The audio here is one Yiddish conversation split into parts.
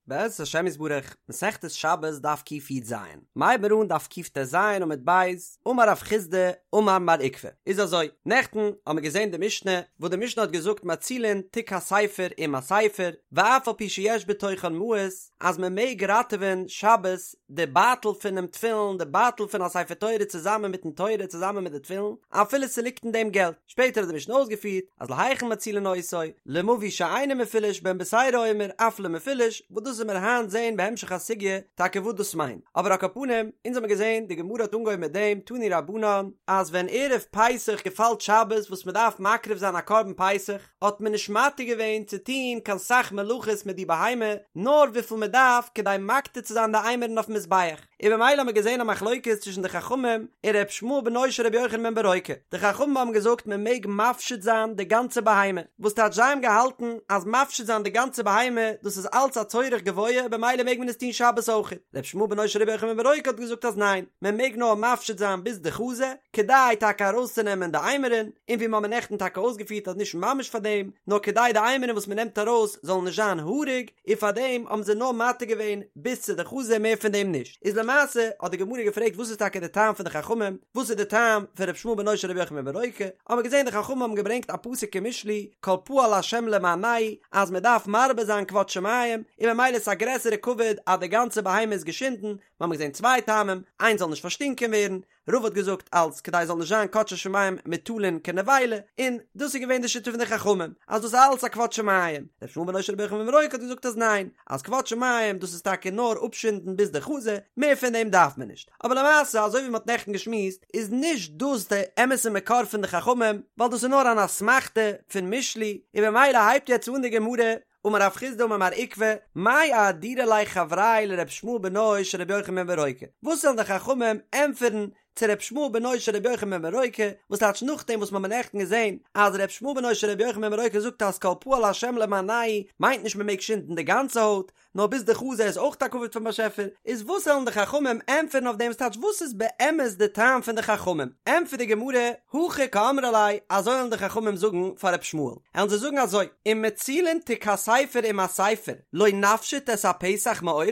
בעזרת השם יתברך, מסכת שבת דף קי"ז, מ'הייבן מיר אן דף קט"ז עמוד ב', אמר רב חסדא אמר מר עוקבא, איז אזוי, נעכטן האבן מיר געזען די משנה, וואס די משנה האט געזאגט מצילין תיק הספר עם הספר, ואף על פי שיש בתוכן מעות, אז מען מעג ראטעווען שבת די בייטל פונעם תפילין, די בייטל פון א ספר תורה צוזאמען מיטן תורה צוזאמען מיט די תפילין, אפילו ס'ליגט אין דעם געלט. שפעטער האט די משנה אויסגעפירט אז להיכן מצילין אותו, למבוי שאינו מפולש בן בתירא אומר אף למפולש, וואס דאס וועלן מיר היינט זעהן בהמשך הסוגיא טאקע וואס דאס מיינט, אבער על כל פנים, אונז האמיר געזעהן די גמרא האט אנגעהויבן מיט דעם תנו רבנן, אז ווען ערב פסח געפאלט שבת וואס מען דארף מקריב זיין א קרבן פסח, האט מען נישט מתיר געווען צו טוהן קיין סך מלאכות מיט די בהמה, נאר וויפיל מען דארף כדי מקטיר צו זיין די אימורין אויפן מזבח. און במילא האבן מיר געזען א מחלוקת צווישן די חכמים און ר' ישמעאל בנו של רבי יוחנן בן ברוקה, די חכמים האבן געזאגט מען מעג מפשיט זיין די גאנצע בהמה, וואס טייטש זיי האבן געהאלטן אז מפשיט זיין די גאנצע בהמה דאס איז אלץ א צורך גבוה במילא מעג מען עס טון שבת אויכעט, ר' ישמעאל בנו של רבי יוחנן בן ברוקה האט געזאגט אז ניין, מען מעג נאר מפשיט זיין ביז די חזה, כדי טאקע ארויסצונעמען די אימורין, און ווי מ'האמיר נעכטן טאקע אויסגעפירט אז נישט ממש פאר דעם, נאר כדי די אימורין וואס מ'נעמט ארויס זאלן נישט זיין האריג, און פאר דעם האבן זיי נאר מתיר געווען ביז צו די חזה מער פון דעם נישט, איז למעשה האט די גמרא געפרעגט וואס איז טאקע די טעם פון די חכמים, וואס איז די טעם פון ר' ישמעאל בנו של רבי יוחנן בן ברוקה, האבן מיר געזען די חכמים האבן געברענגט א פסוק אין משלי כל פעל ה' למענהו אז מען דארף מרבה זיין כבוד שמים, און ממילא איז א גרעסערע כבוד אז די גאנצע בהמה איז געשינדן, מיר האבן געזען צוויי טעמים, איינס זאל נישט פארשטינקען ווערן, רבא האט געזאגט אלץ כדי עס זאל נישט זיין קדשי שמים מוטלין כנבילה, און דאס איז געווען די שיטה פון די חכמים, אז דאס איז אלץ א כבוד שמים, ר' ישמעאל בנו של רבי יוחנן בן ברוקה האט געזאגט אז ניין, אז כבוד שמים דאס איז טאקע נאר אפשינדן ביז די חזה, מער פון דעם דארף מען נישט, אבער למעשה אזוי ווי מען האט נעכטן געשמועסט איז נישט דאס די אמת'ע מקור פון די חכמים, ווייל דאס איז נאר אן אסמכתא פון משלי, און במילא הייבט יעצט אן די גמרא, אמר רב חסדא אמר מר עוקבא, מאי אהדרו ליה חברייא לר' ישמעאל בנו של רבי יוחנן בן ברוקה, וואס וועלן די חכמים ענטפערן צו ר' ישמעאל בנו של רבי יוחנן בן ברוקה, וואס טייטש נאכדעם וואס מ'האמיר נעכטן געזען אז ר' ישמעאל בנו של רבי יוחנן בן ברוקה זאגט אז כל פעל השם למענהו מיינט נישט מ'מעג שינדן די גאנצע הויט, נאר ביז די חזה איז אויך א כבוד פון באשעפער, איז וואס וועלן די חכמים ענטפערן אויף דעם וואס טייטש וואס איז באמת די טעם פון די חכמים? ענטפערט די גמרא, הכי קאמרי ליה, אזוי וועלן די חכמים זאגן פאר ר' ישמעאל, וועלן זיי זאגן אזוי, אם מצילין תיק הספר עם הספר, לא נפשיט את הפסח מעורו,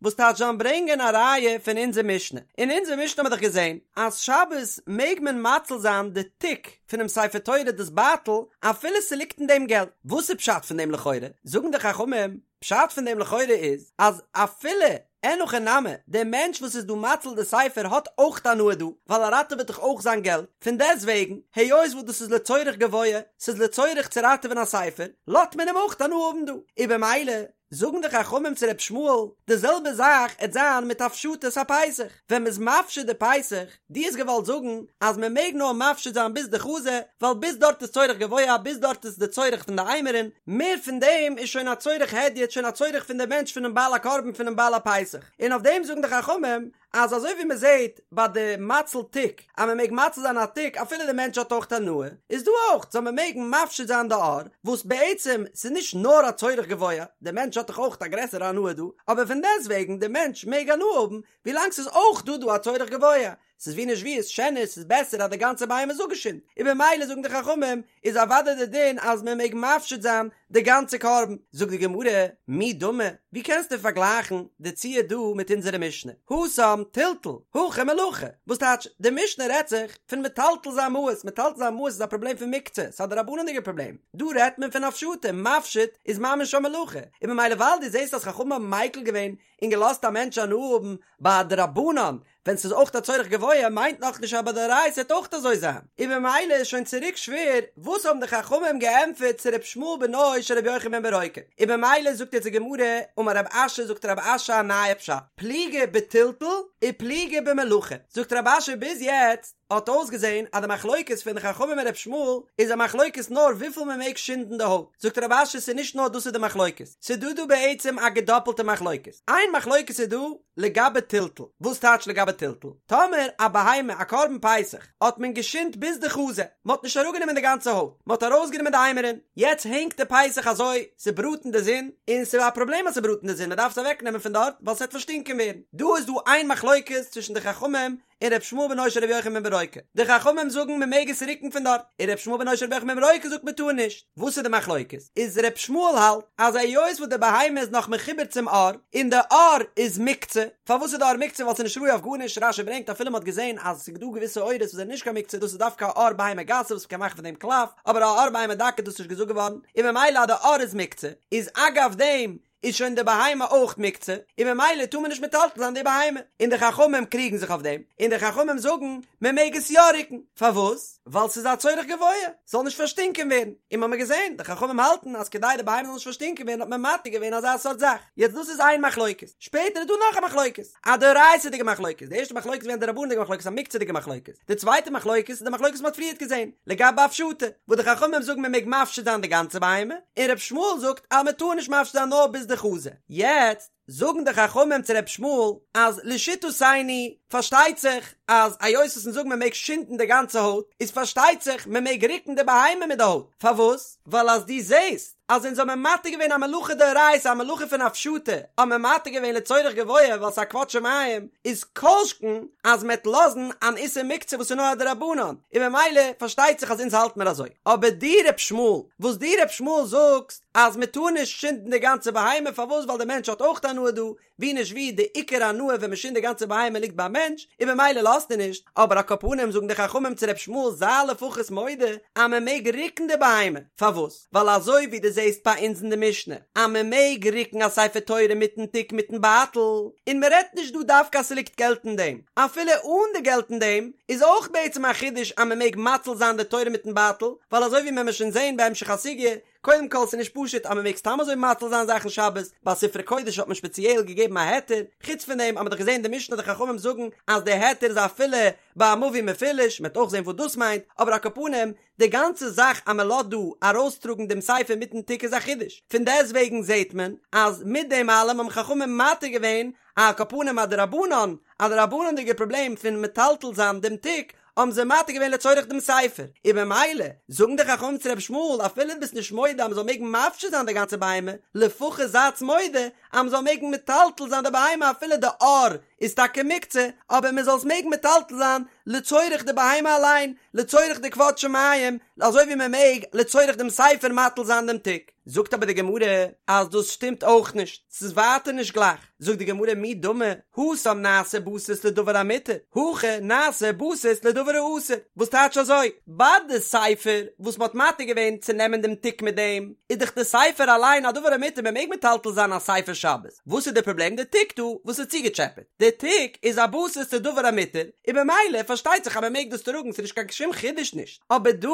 וואס טייטש זיי וועלן ברענגען א ראיה פון אונזער משנה, אין אונזער משנה האבן מיר דאך געזען אז שבת מעג מען מציל זיין די תיק פונעם ספר תורה דאס בייטל אפילו ס'ליגט אין דעם געלט, וואס איז פשט פון דעם לכאורה? זאגן די חכמים, פשט פון דעם לכאורה איז אז אפילו אין הכי נמי דער מענטש וואס איז דא מציל די ספר האט אויך הנאה דא ווייל ער ראטעוועט דאך אויך זיין געלט, פון דעסט וועגן היות וואס דאס איז לצורך גבוה, ס'איז לצורך צו ראטעווען א ספר, לאזט מען אים אויך הנאה האבן דא, און במילא זאגן די חכמים צו ר' ישמעאל די זעלבע זאך עט זיין מיט הפשטת הפסח, ווען מ'איז מפשיט די פסח, דו האסט געוואלט זאגן אז מען מעג נאר מפשיט זיין ביז די חזה, ווייל ביז דארט איז צורך גבוה, ביז דארט איז די צורך פון די אימורין, מער פון דעם איז שוין א צורך הדיוט, שוין א צורך פון די מענטש פונעם בעל הקרבן פונעם בעל הפסח, און אויף דעם זאגן די חכמים אז אזוי ווי מען זעט ביי די מציל תיק אז מען מעג מציל זיין א תיק אפילו די מענטש האט אויך הנאה, איז דא אויך זאל מען מעגן מפשיט זיין די עור, וואס בעצם ס'איז נישט נאר א צורך גבוה, די מענטש האט דאך אויך א גרעסערע הנאה דא, אבער פון דעסטוועגן די מענטש מעג הנאה האבן ווילאנג ס'איז אויך דא דא א צורך גבוה, ס'איז ווי נישט ווי איז שענער ס'איז בעסער אז די גאנצע בהמה איז אפגעשינדן, און במילא זאגן די חכמים איז אוודאי די דין אז מען מעג מפשיט זיין די גאנצע קרבן, זאגט די גמרא, מי דמי, ווי קענסטו פארגלייכן די ציור דא מיט אונזערע משנה, התם טלטול, הכא מלאכה, וואס טייטש די משנה רעדט זיך פון מטלטל זיין מעות, מטלטל זיין מעות איז א פראבלעם פון מוקצה, ס'איז א דרבנן'דיגע פראבלעם, דא רעדט מען פון הפשטה, מפשיט איזמ ממש א מלאכה, און במילא ווייל דו זעסט אז חכמים האבן מיקל געווען און געלאזט א מענטש הנאה האבן ביי א דרבנן ווען ס'איז אויך א צורך גבוה מיינט נאכנישט אז ביי דאורייתא וועט אויך אזוי זיין, און במילא איז שוין צוריק שווער וואס האבן די חכמים געענטפערט צו ר' ישמעאל בנו של ר' יוחנן בן ברוקה, און במילא זאגט יעצט די גמרא, אמר רב אשי זאגט רב אשי א נייע פשט, פליגי בטלטול ופליגי במלאכה, זאגט רב אשי ביז יעצט האט אויסגעזען אז די מחלוקת פון די חכמים און ר' ישמעאל איז א מחלוקת נאר וויפיל מען מעג שינדן די הויט, זאגט רב אשי ס'איז נישט נאר דאס איז די מחלוקת, ס'איז דא דא בעצם א געדאפלטע מחלוקת, איין מחלוקת איז דא לגבי טלטול, וואס טייטש לגבי טלטול? טאמער א בהמה א קרבן פסח האט מען געשינדט ביז די חזה, מען האט נישט אראפגענומען די גאנצע הויט, מען האט ארויסגענומען די אימורין, יעצט הענגט די פסח אזוי, ס'בראט אין די זון, און ס'איז א פראבלעם אז ס'בראט אין די זון, מען דארף עס אוועקנעמען פון דארט ווייל ס'וועט פארשטינקען ווערן, דא איז דא איין מחלוקת. מחלוקת צווישן די חכמים און ר' ישמעאל בנו של ר' יוחנן בן ברוקה. די חכמים זאגן מען מעג עס רוקן פון דארט, און ר' ישמעאל בנו של ר' יוחנן בן ברוקה זאגט מען טאר נישט. וואס איז די מחלוקת? איז ר' ישמעאל האלט אז היות וואס די בהמה איז נאך מחובר צום עור, און די עור איז מוקצה, פארוואס איז די עור מוקצה? ווייל ס'איז נישט ראוי אויף גארנישט, רש"י ברענגט אפילו מ'האט געזען אז ס'איז דא געוויסע עורות וואס זענען נישט קיין מוקצה, דאס איז דווקא א עור בהמה גסה וואס מ'קען מאכן פון דעם קלף, אבער א עור בהמה דקה איז דאס נישט געזאגט געווארן, און ממילא אז די עור איז מוקצה, איז אגב דעם איז שוין די בהמה אויך מוקצה, און ממילא טאר מען נישט מטלטל זיין די בהמה, און די חכמים קריגן זיך אויף דעם, און די חכמים זאגן מען מעג עס יא רוקן, פארוואס? ווייל ס'איז א צורך גבוה, ס'זאל נישט פארשטינקען ווערן, און מ'האמיר געזען, די חכמים האלטן אז כדי די בהמה זאל נישט פארשטינקען ווערן האט מען מתיר געווען אזא סארט זאך, יעצט דאס איז איין מחלוקת, שפעטער איז דא נאך א מחלוקת, א דאורייתא'דיגע מחלוקת, די ערשטע מחלוקת איז געווען א דרבנן'דיגע מחלוקת א מוקצה'דיגע מחלוקת, די צווייטע מחלוקת איז די מחלוקת וואס מ'האט פריערט געזען, לגבי הפשטה, וואס די חכמים זאגן מ'מעג מפשיט זיין די גאנצע בהמה, און ר' ישמעאל זאגט אז מ'טאר נישט מפשיט זיין נאר ביז די חזה. יעצט זאגן די חכמים צו ר' ישמעאל אז לשיטתינו פארשטייט זיך אז היות וואס אונז זאגן מ'מעג שינדן די גאנצע הויט, איז פארשטייט זיך מ'מעג רוקן די בהמה מיט די הויט, פארוואס? ווייל אז דו זעסט אז אונז האבן מתיר געווען א מלאכה דאורייתא א מלאכה פון הפשטה האבן מיר מתיר געווען לצורך גבוה ווייל ס'איז א כבוד שמים איז כל שכן אז מ'עט לאזן אן איסור מוקצה וואס איז נאר א דרבנן און ממילא פארשטייט זיך אז אונז האלט מיר אזוי אבער דו ר' ישמעאל וואס דו ר' ישמעאל זאגסט אז מ'טאר נישט שינדן די גאנצע בהמה פארוואס ווייל די מענטש האט אויך הנאה דא ווי נישט ווי די עיקר הנאה ווען מ'שינדט די גאנצע בהמה ליגט ביים מענטש, און ממילא לאזט ער נישט, אבער על כל פנים זאגן די חכמים צו ר' ישמעאל זיי לפחות מודה אז מ'מעג רוקן די בהמה, פארוואס? ווייל אזוי ווי דו זעסט ביי אונז אין די משנה אז מ'מעג רוקן א ספר תורה מיטן תיק מיטן בייטל, און מ'רעדט נישט דא דווקא אז ס'ליגט געלט אין דעם, אפילו אן די געלט אין דעם, איז אויך בעצם א חידוש אז מ'מעג מציל זיין די תורה מיטן בייטל, ווייל אזוי ווי מ'עמיר שוין זען בהמשך הסוגיא, קודם כל ס'איז נישט פשוט אז מ'מעג סתם אזוי מציל זיין זאכן שבת, ביי ספרי קודש האט מען שפעציעל געגעבן א היתר, חוץ פון דעם האט מען דאך געזען אין די משנה די חכמים זאגן אז די היתר איז אפילו ביי א מבוי מפולש, מ'וועט אויך זען וואס דאס מיינט, אבער על כל פנים, די גאנצע זאך אז מ'לאזט דא ארויסטראגן דעם ספר מיטן תיק איז א חידוש, פון דעסטוועגן זעט מען אז מיט דעם אלעם האבן חכמים מתיר געווען על כל פנים א דרבנן, א דרבנן'דיגע פראבלעם פון מטלטל זיין דעם תיק, האבן זיי מתיר געווען לצורך דעם ספר, און במילא זאגן די חכמים צו רבי ישמעאל אפילו דו ביסט נישט מודה אז מען זאל מעגן מפשיט זיין די גאנצע בהמה, לפחות זייטס מודה אז מען זאל מעגן מטלטל זיין די בהמה אפילו די עור איז טאקע מוקצה, אבער מען זאל עס מעגן מטלטל זיין לצורך די בהמה אליין, לצורך די כבוד שמים, אזוי ווי מען מעג לצורך דעם ספר מטיל זיין דעם תיק. זאגט אבער די גמרא אז דאס שטימט אויך נישט, ס'איז ווייטער נישט גלייך, זאגט די גמרא מי דמי, התם נעשה בסיס לדבר המותר, הכא נעשה בסיס לדבר האסור, וואס טייטש אזוי? ביי די ספר וואס מ'האט מתיר געווען צו נעמען דעם תיק מיט דעם, איז דאך די ספר אליין א דבר המותר מ'מעג מטלטל זיין א ספר שבת, וואס איז די פראבלעם די תיק דא וואס איז צוגעטשעפעט? די תיק איז א בסיס לדבר המותר, און במילא פארשטייט זיך אז מ'מעג דאס טראגן ס'איז נישט קיין שום חידוש נישט. אבער דא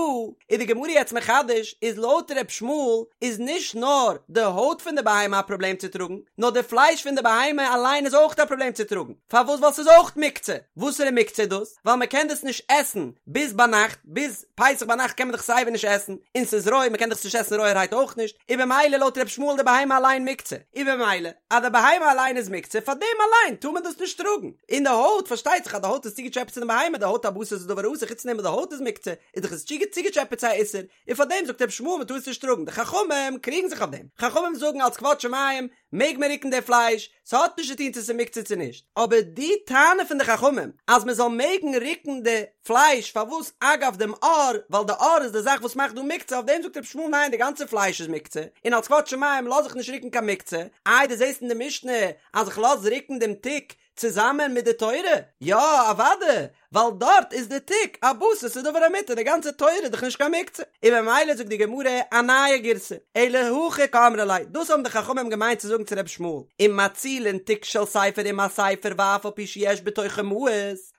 איז די גמרא יעצט מחדש איז לויט ר' ישמעאל איז נישט נאר די הויט פון די בהמה א פראבלעם צו טראגן, נאר די פלייש פון די בהמה אליין איז אויך א פראבלעם צו טראגן, פארוואס ווייל ס'איז אויך מוקצה, וואסערע מוקצה איז דאס? ווייל מ'קען דאס נישט עסן ביז ביינאכט, ביז פסח ביינאכט קען מען דאך סייווי נישט עסן, און ס'איז רוי מ'קען דאך עס נישט עסן רויערהייט אויך נישט, און במילא לויט ר' ישמעאל די בהמה אליין מוקצה, און במילא אז די בהמה אליין איז מוקצה פאר דעם אליין טאר מען דאס נישט טראגן. און די הויט, פארשטייט זיך אז די הויט איז צוגעטשעפעט צו די בהמה, די הויט א בסיס לדבר האסור, חוץ פון דעם וואס די הויט איז מוקצה, איז דאך עס צוגעטשעפעט צו א איסור, און פאר דעם זאגט רבי ישמעאל מען טאר עס נישט טראגן, די חכמים קריגן זיך אויף דעם, חכמים זאגן אלס כבוד שמים מעג מען רוקן די פלייש, ס'האט נישט צו טון צו ס'איז מוקצה צו נישט, אבער די טענה פון די חכמים אז מען זאל מעגן רוקן די פלייש פארוואס אגב דעם עור, ווייל די עור איז די זאך וואס מאכט דא מוקצה, אויף דעם זאגט רבי ישמעאל ניין די גאנצע פלייש איז מוקצה, און אלס כבוד שמים לאז איך נישט רוקן קיין מוקצה, איי דו זעסט אין די משנה אז איך לאז רוקן דעם תיק צוזאמען מיט די תורה? יא אוודאי, ווייל דארט איז די תיק א בסיס לדבר המותר, די גאנצע תורה איז דאך נישט קיין מוקצה, און ממילא זאגט די גמרא א נייע גירסא, אלא הכי קאמרי ליה, דאס האבן די חכמים געמיינט צו זאגן צו רבי ישמעאל, אם מצילין תיק של ספר עם הספר ואף על פי שיש בתוכו מעות,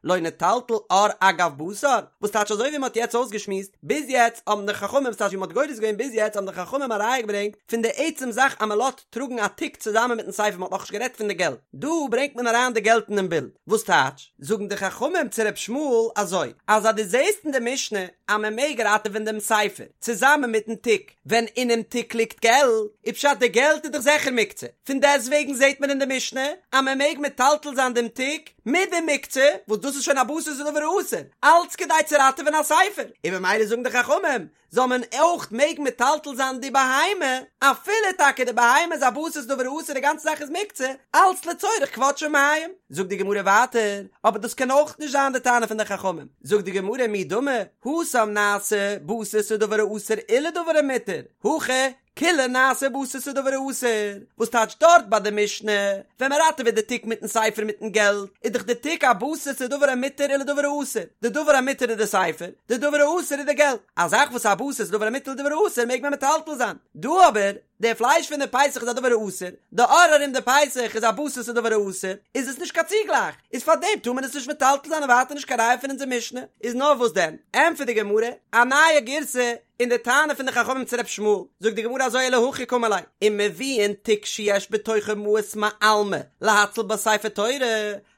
לא נטלטל עור אגב בשר, וואס טייטש אזוי ווי מען האט יעצט אויסגעשמועסט, ביז יעצט האבן די חכמים, ס'טייטש ווי מען האט גורס געווען ביז יעצט האבן די חכמים א ראיה געברענגט פון די עצם זאך אז מען לאזט טראגן א תיק צוזאמען מיטן ספר, מען האט נאכנישט גערעדט פון די געלט, דא ברענגט מען אריין די געלט אינעם בילד, וואס טייטש, זאגן די חכמים צו ר' ישמעאל אזוי, אז אז דו זעסט אין די משנה אז מען מעג ראטעווען דעם ספר צוזאמען מיטן תיק, ווען אינעם תיק ליגט געלט, איז פשט די געלט איז דאך זיכער מוקצה, פון דעסטוועגן זעט מען אין די משנה אז מען מעג מטלטל זיין דעם תיק מיט די מוקצה, וואס דאס איז שוין א בסיס לדבר האסור, אלץ כדי צו ראטעווען א ספר, און ממילא זאגן די חכמים, זאל מען אויך מעגן מטלטל זיין די בהמה, אפילו טאקע די בהמה איז א בסיס דבר האסור די גאנצע זאך איז מוקצה, אלץ לצורך כבוד שמים. זאגט די גמרא ווייטער, אבער דאס קען אויך נישט זיין די טענה פון די חכמים, זאגט די גמרא מי דמי, התם נעשה בסיס לדבר האסור ולדבר המותר, הכא כוליה נעשה בסיס לדבר האסור, וואס טייטש דארט ביי די משנה, ווען מען ראטעוועט די תיק מיטן ספר מיטן געלט, איז דאך די תיק א בסיס לדבר המותר ולדבר האסור, די דבר המותר איז די ספר, די דבר האסור איז די געלט, א זאך וואס איז א בסיס לדבר המותר ולדבר האסור מעג מען מטלטל זיין, דא אבער, די פלייש פון די פסח איז א דבר האסור, די עור ארום די פסח איז א בסיס לדבר האסור, איז עס נישט קיין צוגלייך, איז פארדעם טאר מען עס נישט מטלטל זיין און ווייטער נישט קיין ראיה פון אונזער משנה, איז נאר וואס דען? ענטפערט די גמרא, א נייע גירסא אין די טענה פון די חכמים צו ר' ישמעאל, זאגט די גמרא אזוי אלא הכי קאמר ליה, אם מביאין תיק שיש בתוכו מעות מעלמא להציל בה ספר תורה,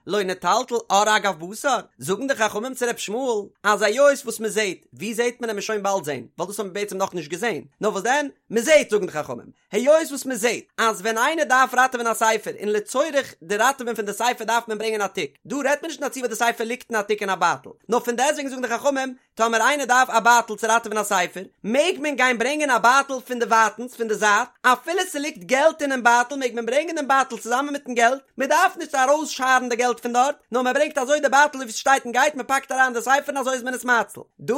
לא נטלטל עור אגב בשר, זאגן די חכמים צו ר' ישמעאל, אז היות וואס מען זעט, ווי זעט מען עמיר שוין באלד זען, ווייל דאס האבן מיר בעצם נאכנישט געזען, נאר וואס דען, מען זעט זאגן די חכמים, היות וואס מען זעט אז ווען איינער דארף ראטעווען א ספר און לצורך די ראטעווען פון די ספר דארף מען ברענגען א תיק, דא רעדט מען נישט אין א ציור וואס די ספר ליגט אין א תיק אין א בייטל, נאר פון דעסטוועגן זאגן די חכמים, טאמער איינער דארף א בייטל צו ראטעווען א ספר, מעג מען גיין ברענגען א בייטל פון די ווייטנס, פון די זייט, אפילו ס'ליגט געלט אינעם בייטל מעג מען ברענגען דעם בייטל צוזאמען מיטן געלט, מען דארף נישט ארויסשארן די געלט פון דארט, נאר מען ברענגט אזוי די בייטל ווי ס'שטייט און גייט, מען פאקט אריין די ספר און אזוי איז מען עס מציל. דא,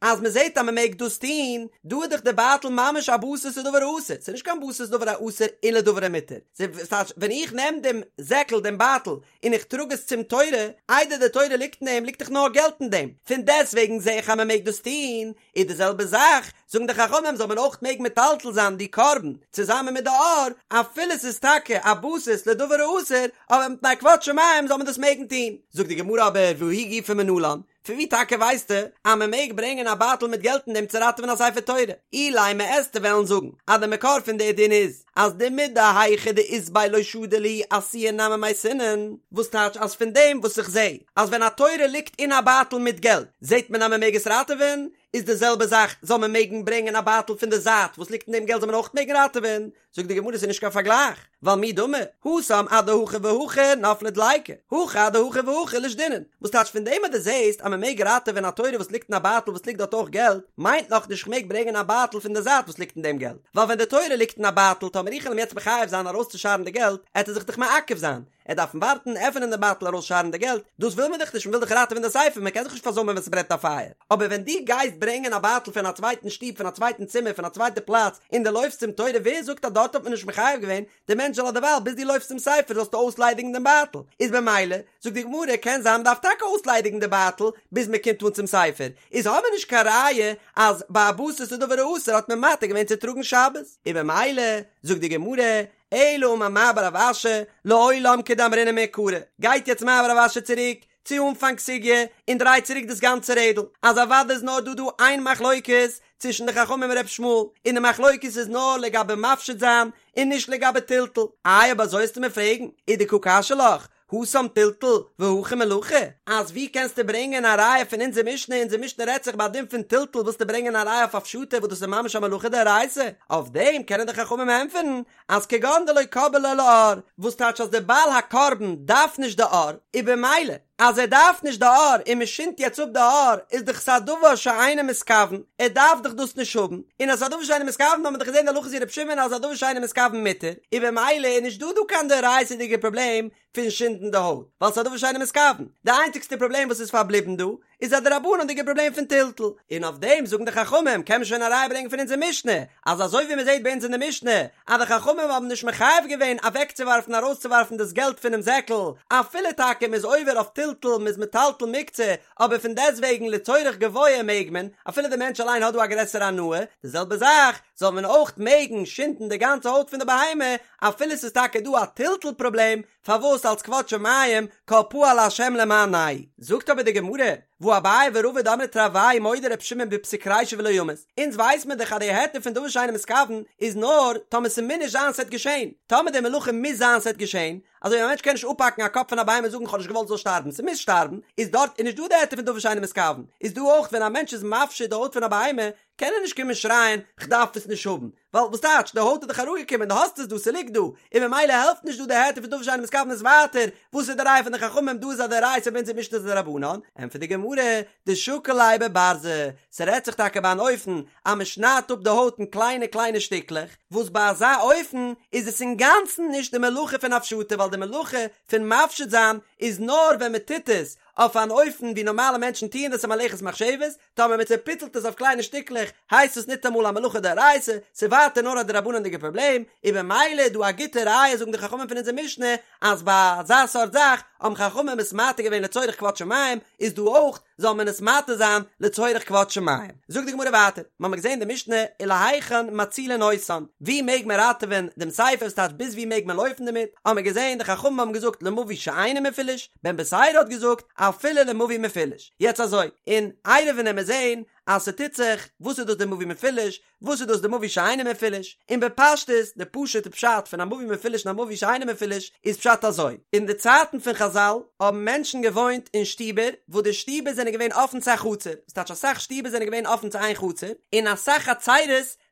אז מען זעט אז מען מעג דאס טון, דא איז דאך די בייטל ממש א בסיס לדבר האסור, ס'איז נישט קיין בסיס לדבר האסור און לדבר המותר, ס'טייטש ווען איך נעם דעם זעקל, דעם בייטל, און איך טראג עס צום תורה, איידער די תורה ליגט אין דעם ליגט דאך נאר געלט אין דעם, פון דעסטוועגן זע איך אז מען מעג דאס טון, איז די זעלבע זאך, זאגן די חכמים זאל מען אויך מעגן מטלטל זיין די קרבן צוזאמען מיט די עור, אפילו ס'איז טאקע א בסיס לדבר האסור, אבער מפני כבוד שמים זאל מען דאס מעגן טון. זאגט די גמרא אבער והיא גופא מנלן, פון ווי טאקע ווייסטו אז מען מעג ברענגען א בייטל מיט געלט אין דעם צו ראטעווען א ספר תורה? אילימא עסטו וועלן זאגן אז די מקור פון די דין איז אז דמידהיכא דאית ביה לא שדי להו אתויי נמי מייתינן, וואס טייטש אז פון דעם וואס איך זע אז ווען א תורה ליגט אין א בייטל מיט געלט זעט מען אז מען מעג עס ראטעווען, איז די זעלבע זאך זאל מען מעגן ברענגען א בייטל פון די זייט וואס ליגט אין דעם געלט זאל מען אויך מעגן ראטעווען, זאגט די גמרא ס'איז נישט קיין פארגלייך, ווייל מי דמי, התם אדהכי והכי נפלה דליקה, הכא אדהכי והכי לישדינן, וואס טייטש פון דעם אז דו זעסט אז מען מעג ראטעווען א תורה וואס ליגט אין א בייטל וואס ליגט דארט אויך געלט, מיינט נאך נישט כ'מעג ברענגען א בייטל פון די זייט וואס ליגט אין דעם געלט, ווייל ווען די תורה ליגט אין א בייטל טאמער איך וועל אים יעצט מחייב זיין ארויסצושארן די געלט, עט ער זיך דאך מעכב זיין, ער דארפן ווארטן, עפענען די בייטל ארויסשארן די געלט, דאס וויל מען דאך נישט, מען וויל דאך ראטעווען די ספר, מען קען זיך נישט פארזוימען ווען ס'ברענט א פייער. אבער ווען דו גייסט ברענגען א בייטל פון א צווייטן שטוב, פון א צווייטן צימער, פון א צווייטע פלאץ, און דו לויפסט צום תורה, ווער זאגט אז דארט האט מען נישט מחייב געווען די מענטש זאל אדערווייל ביז דו לויפסט צום ספר זאלסטו אויסליידיגן דעם בייטל? איז במילא, זאגט די גמרא, קען זיין מען דארף טאקע אויסליידיגן די בייטל ביז מען קומט אן צום ספר, איז האבן מיר נישט קיין ראיה אז ביי א בסיס לדבר האסור האט מען מתיר געווען צו טראגן שבת. און במילא, זאגט די גמרא, אלא אמר מר בר רב אשי, לעולם כדאמרינן מעיקרא, גייט יעצט מר בר רב אשי צוריק צו אנפאנג סוגיא און דרייט צוריק דאס גאנצע רעדל, אז אוודאי איז נאר דא דא איין מחלוקת צווישן די חכמים און ר' ישמעאל, און די מחלוקת איז נאר לגבי מפשיט זיין און נישט לגבי טלטול, איי אויב אזוי וועסטו מיר פרעגן, ודקא קשיא לך, התם טלטול והכא מלאכה, אז ווי קענסטו ברענגען א ראיה פון אונזער משנה, אונזער משנה רעדט זיך ביי א דין פון טלטול ווילסטו ברענגען א ראיה אויף הפשטה וואס דאס איז ממש א מלאכה דאורייתא, אויף דעם קענען די חכמים ענטפערן אז כגון דלא קבעי ליה לעור, וואס טייטש אז דער בעל הקרבן דארף נישט די עור, און במילא אז ער דארף נישט די עור און מען שינדט יעצט אפ די עור איז דאך עס א דבר שאינו מתכוון, ער דארף דאך דאס נישט האבן, און אז ס'איז א דבר שאינו מתכוון האט מען דאך געזען די הלכה איז ווי ר' שמעון אז א דבר שאינו מתכוון מותר, און במילא איז נישט דא דא קיין דאורייתא'דיגע פראבלעם פון שינדן די הויט, ווייל ס'איז א דבר שאינו מתכוון, די איינציגסטע פראבלעם וואס איז פארבליבן דא איז א דרבנן'דיגע פראבלעם פון טלטול, און אויף דעם זאגן די חכמים קען מען שוין א ראיה ברענגען פון אונזער משנה, אז אזוי ווי מען זעט ביי אונז אין די משנה אז די חכמים האבן נישט מחייב געווען אוועקצואווארפן ארויסצואווארפן דאס געלט פונעם זעקל, אפילו טאקע מען איז עובר אויף טלטול מען איז מטלטל מוקצה, אבער פון דעסטוועגן לצורך גבוה מעג מען, אפילו די מענטש אליין האט דא א גרעסערע הנאה, די זעלבע זאך זאל מען אויך מעגן שינדן די גאנצע הויט פון די בהמה, אפילו ס'איז טאקע דא א טלטול פראבלעם, פארוואס אלס כבוד שמים כל פעל השם למענהו? זאגט אבער די גמרא, והא אביי ורבא דאמרי תרוייהו מודה ר' שמעון בפסיק רישא ולא ימות, אונז ווייס מיר דאך אז די היתר פון דבר שאינו מתכוון איז נאר טאמער ס'מוז נישט זיין ס'עט געשען, טאמער די מלאכה מוז זיין ס'עט געשען, אזוי ווי א מענטש קען נישט אפהאקן א קאפ פון א בהמה און זאגן כ'האב נישט געוואלט ס'זאל שטארבן, ס'מוז שטארבן, איז דארט איז נישט דא די היתר פון דבר שאינו מתכוון, איז דא אויך ווען א מענטש איז מפשיט די הויט פון א בהמה קען ער נישט קומען שרייען כ'דארף עס נישט האבן, ווייל וואס טייטש, די הויט איז דאך אראפגעקומען, דו האסט עס דא, ס'ליגט דא, און ממילא העלפט נישט דא די היתר פון דבר שאינו מתכוון איז ווייטער, וואס איז די ראיה פון די חכמים דא איז א דאורייתא ביי אונזער משנה איז א דרבנן, ענטפערט די גמרא, דשקיל ליה בברזא, ס'רעדט זיך טאקע ביי אן אופן אז מ'שניידט אפ די הויט אין קליינע קליינע שטיקלעך, וואס ביי אזא אופן איז עס אינגאנצן נישט די מלאכה פון הפשטה ווייל די מלאכה פון מפשיט זיין איז נאר ווען מ'טוט עס אויף אן אופן ווי נארמאלע מענטשן טוען דאס א מלאכת מחשבת, טאמער מען צעפיצלט עס אויף קליינע שטיקלעך הייסט עס ניטאמאל א מלאכה דאורייתא, ס'איז ווייטער נאר א דרבנן'דיגע פראבלעם, און במילא איז דא א גוטע ראיה זאגן די חכמים פון אונזער משנה אז ביי אזא סארט זאך האבן חכמים עס מתיר געווען לצורך כבוד שמים, איז דא אויך זאל מען עס מתיר זיין לצורך כבוד שמים. זאגט די גמרא ווייטער, מ'האמיר געזען די משנה ולהיכן מצילין אותן, ווי מעג מען ראטעווען דעם ספר, ס'טייטש ביז ווי מעג מען לויפן דערמיט, האמיר געזען די חכמים האבן געזאגט למבוי שאינו מפולש, בן בתירא האט געזאגט אפילו למבוי מפולש. יעצט אזוי, אין עירובין וועמיר זעהן אז ס'טוט זיך, וואס איז דאס די מבוי מפולש, וואס איז דאס די מבוי שאינו מפולש, און בפשטות, די פשוט'ע פשט פון א מבוי מפולש און א מבוי שאינו מפולש איז פשט אזוי, אין די צייטן פון חזל האבן מענטשן געוואוינט אין שטיבער וואס די שטיבער זענען געווען אפן צו א חצר, ס'טייטש אסאך שטיבער זענען געווען אפן צו איין חצר, און אסאך חצרות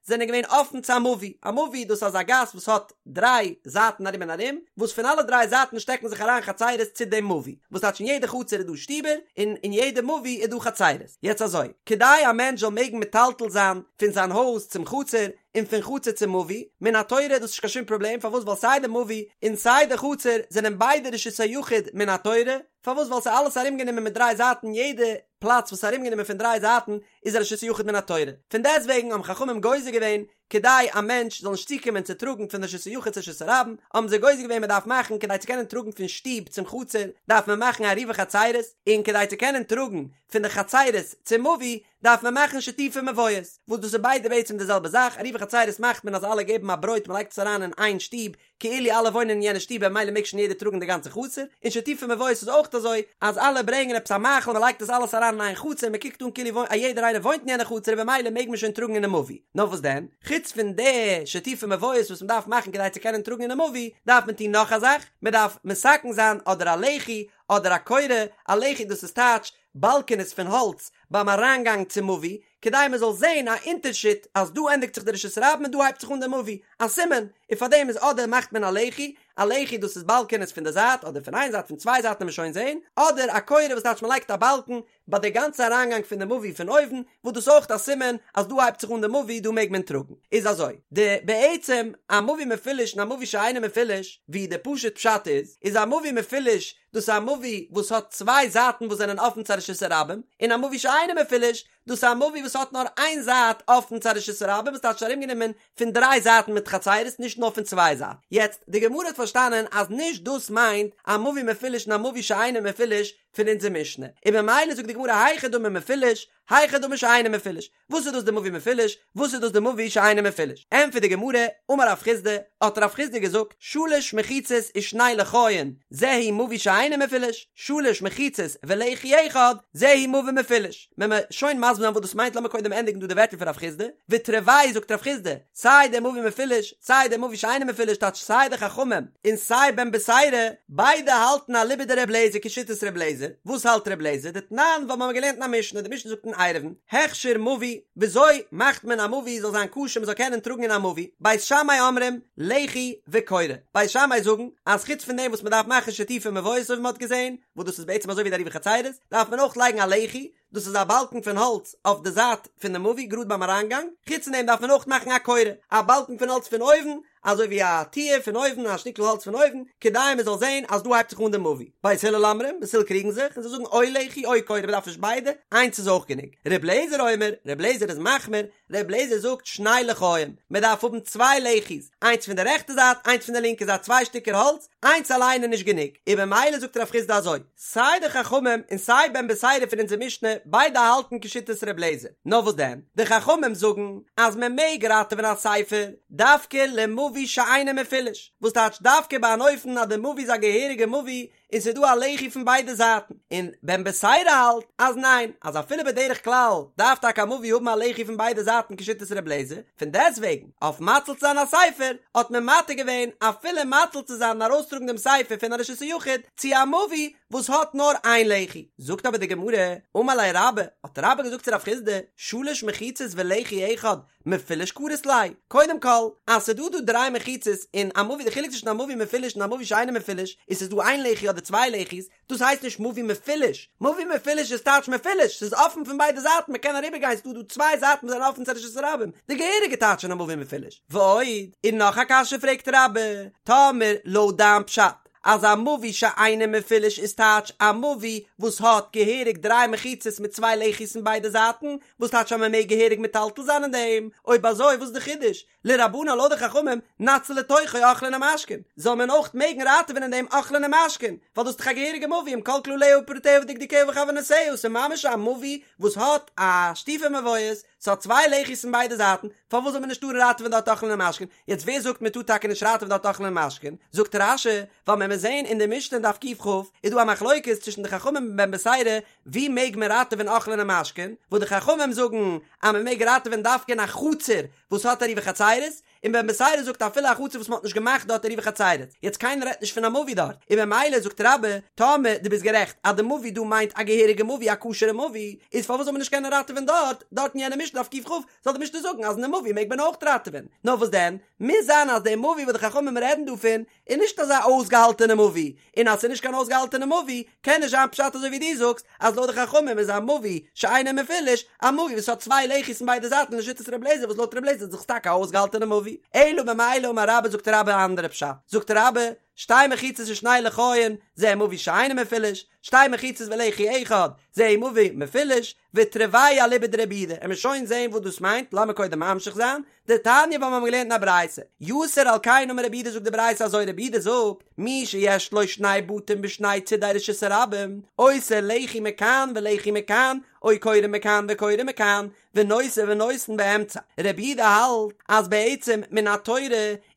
זענען געווען אפן צו א מבוי, א מבוי דאס איז אזא גאס וואס האט דריי זייטן ארום און ארום, וואס פון אלע דריי זייטן שטעקן זיך אריין חצרות צו דעם מבוי, וואס טייטש אין יעדע חצר איז דא שטיבער, און אין יעדע מבוי איז דא חצרות. יעצט אזוי, כדי א מענטש זאל מעגן מטלטל זיין פון זיין הויז צום חצר, און פון חצר צום מבוי, מן התורה איז דאס נישט קיין שום פראבלעם, פארוואס ווייל סיי די מבוי און סיי די חצר זענען ביידע רשות היחיד מן התורה, פארוואס ווייל ס'איז אלעס ארומגענומען מיט דריי זייטן יעדע פלאץ וואס איז ארומגענומען פון דריי זייטן איז א רשות היחיד מן התורה, פון דעסטוועגן האבן חכמים גוזר געווען כדי א מענטש זאל נישט צוקומען צו טראגן פון רשות היחיד צו רשות הרבים, האבן זיי גוזר געווען מען דארף מאכן כדי צו קענען טראגן פון שטוב צום חצר דארף מען מאכן עירובי חצירות, און כדי צו קענען טראגן פון די חצירות צום מבוי דארף מען מאכן שיתופי מבואות, וואס דאס איז ביידע בעצם די זעלבע זאך, עירובי חצירות מאכט מען אז אלע געבן א ברויט מען לייגט עס אריין אין איין שטוב, כאילו אלע וואוינען אין יענע שטוב במילא מעג שוין יעדער טראגן די גאנצע חצר, און שיתופי מבואות איז אויך אזוי אז אלע ברענגען עפעס א מאכל מען לייגט עס אלעס אריין אין איין חצר מען קוקט אן כאילו א יעדער איינער וואוינט אין יענע חצר און במילא מעג מען שוין טראגן אינעם מבוי, נאר וואס דען? חוץ פון די שיתופי מבואות וואס מען דארף מאכן כדי צו קענען טראגן אינעם מבוי, דארף מען טון נאך א זאך, מען דארף מתקן זיין אדער א לחי אדער א קורה, א לחי דאס איז טייטש באלקענעס פון האלץ ביים אריינגאנג צום מבוי, כדי מען זאל זען א אונטערשיד אז דא ענדיגט זיך די רשות הרבים און דא הייבט זיך אן די מבוי, א סימן, און פאר דעם איז אדער מאכט מען א לחי, א לחי דאס איז באלקענעס פון די זייט אדער פון איין זייט פון צוויי זייטן וועט מען שוין זען, אדער א קורה וואס טייטש מען לייגט א באלקן ביי די גאנצע אריינגאנג פון די מבוי פון אויבן, וואס דאס אויך א סימן אז דא הייבט זיך אן די מבוי דא מעג מען טראגן, איז אזוי, די בעצם א מבוי מפולש און א מבוי שאינו מפולש, ווי די פשוט פשט איז, איז א מבוי מפולש דאס איז א מבוי וואס האט צוויי זייטן וואס זענען אפן צו א רשות הרבים, און א מבוי שאינו מפולש, דאס איז א מבוי וואס האט נאר איין זייט אפן צו א רשות הרבים וואס טייטש ארומגענומען פון דריי זייטן מיט חצירות נישט נאר פון צוויי זייטן. יעצט, די גמרא האט פארשטאנען אז נישט דאס מיינט א מבוי מפולש און א מבוי שאינו מפולש פון אונזער משנה, און ממילא זאגט די גמרא היכי דמי מפולש, היכי דמי שאינו מפולש, וואס איז דאס די מבוי מפולש? וואס איז דאס די מבוי שאינו מפולש? ענטפערט די גמרא, אמר רב חסדא, האט רב חסדא געזאגט, שלש מחיצות ושני לחיין, זהו מבוי שאינו מפולש, שלש מחיצות ולחי אחד, זהו מבוי מפולש. וועלן מיר שוין מסביר זיין וואס דאס מיינט, לאמיר קודם ענדיגן דא די ווערטער פון רב חסדא, ותרוייהו זאגט רב חסדא, סיי דער מבוי מפולש, סיי דער מבוי שאינו מפולש טייטש סיי די חכמים און סיי בן בתירא, ביידע האלטן אליבא דר' אליעזר כשיטת ר' אליעזר, וואס האלט ר' אליעזר? דתנן ווייל מ'האמיר געלערנט אין א משנה, די משנה זאגט אין עירובין, הכשר מבוי, וויאזוי מאכט מען א מבוי זאל זיין כשר מ'זאל קענען טראגן אין א מבוי, בית שמאי אומרים, לחי וקורה, בית שמאי זאגן אז חוץ פון דעם וואס מ'דארף מאכן שיתופי מבואות אזוי ווי מ'האט געזען, וואס דאס איז בעצם אזוי ווי די עירובי חצירות, דארף מען אויך לייגן א לחי, דאס איז א באלקן פון האלץ אויף די זייט פון די מבוי גראד ביים אריינגאנג, חוץ פון דעם דארף מען אויך מאכן א קורה, א באלקן פון האלץ פון אויבן, אזוי ווי א טיר פון אויבן, א שטיקל האלץ פון אויבן, כדי מען זאל זען אז דא הייבט זיך אן די מבוי. בית הלל אומרים, בית הלל קריגן זיך, און זיי זאגן או לחי או קורה, מען דארף נישט ביידע, איינס איז אויך גענוג. ר' אליעזר אומר, ר' אליעזר איז מחמיר, ר' אליעזר זאגט שני לחיים, מען דארף האבן צוויי לחי'ס, איינס פון די רעכטע זייט, איינס פון די לינקע זייט, צוויי שטיקער האלץ, איינס אליין איז נישט גענוג, און במילא זאגט רב חסדא אזוי, סיי די חכמים און סיי בן בתירא פון אונזער משנה, ביידע האלטן כשיטת ר' אליעזר, נאר וואס דען, די חכמים זאגן אז מען מעג ראטעווען א ספר דווקא למבוי שאינו מפולש, וואס טייטש דווקא ביי אן אופן אז די מבוי איז א געהעריגע מבוי. און ס'איז דא א לחי פון ביידע זייטן, און בן בתירא האלט אז ניין, אז אפילו בדרך כלל דארף טאקע א מבוי האבן א לחי פון ביידע זייטן כשיטת ר' אליעזר, פון דעסטוועגן אויף מציל צו זיין א ספר האט מען מתיר געווען אפילו מציל צו זיין און ארויסטראגן דעם ספר פון א רשות היחיד צו א מבוי וואס האט נאר איין לחי. זאגט אבער די גמרא, אמר ליה רבה, האט רבה געזאגט צו רב חסדא, שלש מחיצות ולחי אחד, מפולש קרית ליה, קודם כל, אז ס'איז דא דא דריי מחיצות און א מבוי, די חילוק צווישן א מבוי מפולש און א מבוי שאינו מפולש, איז ס'איז דא איין לחי אדער צוויי לחי'ס, דאס הייסט נישט מבוי מפולש, מבוי מפולש איז טייטש מפולש, ס'איז אפן פון ביידע זייטן, מ'קען אריבער גיין, ס'איז דא דא צוויי זייטן וואס זענען אפן צו רשות הרבים, די געהעריגע טייטש פון א מבוי מפולש. ועוד, און נאך א קשיא פרעגט רבה, טאמער לויט דיין פשט, אז א מבוי שאינו מפולש איז טייטש א מבוי וואס האט געהעריג דריי מחיצות מיט צוויי לחי'ס אין ביידע זייטן, וואס טייטש אז מען מעג געהעריג מטלטל זיין אין דעם, אויב אזוי וואס איז די חידוש? לרבנן לויט די חכמים, נציל לתוכו אוכלין ומשקין, זאל מען אויך מעגן ראטעווען אין דעם אוכלין ומשקין, ווייל דאס איז דאך א געהעריגע מבוי עם כל כלליה ופרטיה ודקדוקיה וכוונותיה, ס'איז ממש א מבוי וואס האט א שיתופי מבואות, ס'האט צוויי לחי'ס אין ביידע זייטן, פארוואס זאל מען נישט טארן ראטעווען דארט אוכלין ומשקין? יעצט ווער זאגט מען טאר טאקע נישט ראטעווען דארט אוכלין ומשקין? זאגט רש"י, ווייל מען מוז זעהן אין די משנה אין דף קכ איז דא א מחלוקת צווישן די חכמים און בן בתירא ווי מעג מען ראטעווען אוכלין ומשקין, וואס די חכמים זאגן אז מען מעג ראטעווען דווקא אין א חצר וואס האט עירובי חצירות, און בן בתירא זאגט אפילו א חצר וואס מען האט נישט געמאכט דארט עירובי חצירות, יעצט קיינער רעדט נישט פון א מבוי דארט, און ממילא זאגט רבה, טאמער דו ביסט גערעכט אז די מבוי דא מיינט א געהעריגע מבוי א כשר'ע מבוי, איז פארוואס זאל מען נישט קענען ראטעווען דארט, דארט אין יענע משנה דף קכ, זאל די משנה זאגן אז אין די מבוי מעג מען אויך ראטעווען, נאר וואס דען, מוז זיין אז די מבוי וואס די חכמים רעדן דא פון, איז נישט אזא אויסגעהאלטענע מבוי, און אז ס'איז נישט קיין אויסגעהאלטענע מבוי, קען נישט זיין פשט אזוי ווי דו זאגסט, אז לויט די חכמים איז א מבוי שאינו מפולש, א מבוי וואס האט צוויי לחי'ס אין ביידע זייטן לשיטת ר' אליעזר וואס לויט ר' אליעזר איז דאך טאקע א אויסגעהאלטענע מבוי. אלא במילא אמר רבה זאגט רבה א אנדערע פשט, זאגט רבה, שתי מחיצות ושני לחיין, זה מבוי שאינו מפולש, שתי מחיצות ולחי אחד, זה מבוי מפולש, ותרוייהו אליבא דרבי יהודה, עמיר שוין זעהן וואס דאס מיינט, לאמיר קודם ממשיך זיין, דתניא ווייל מיר האבן געלערנט אין א ברייתא, יתר על כן אמר רבי יהודה זאגט די ברייתא אזוי רבי יהודה זאגט, מי שיש לו שני בתים בשני צידי רשות הרבים, עושה לחי מכאן ולחי מכאן, או קורה מכאן וקורה מכאן, ונושא ונותן באמצע, רבי יהודה האלט אז בעצם מן התורה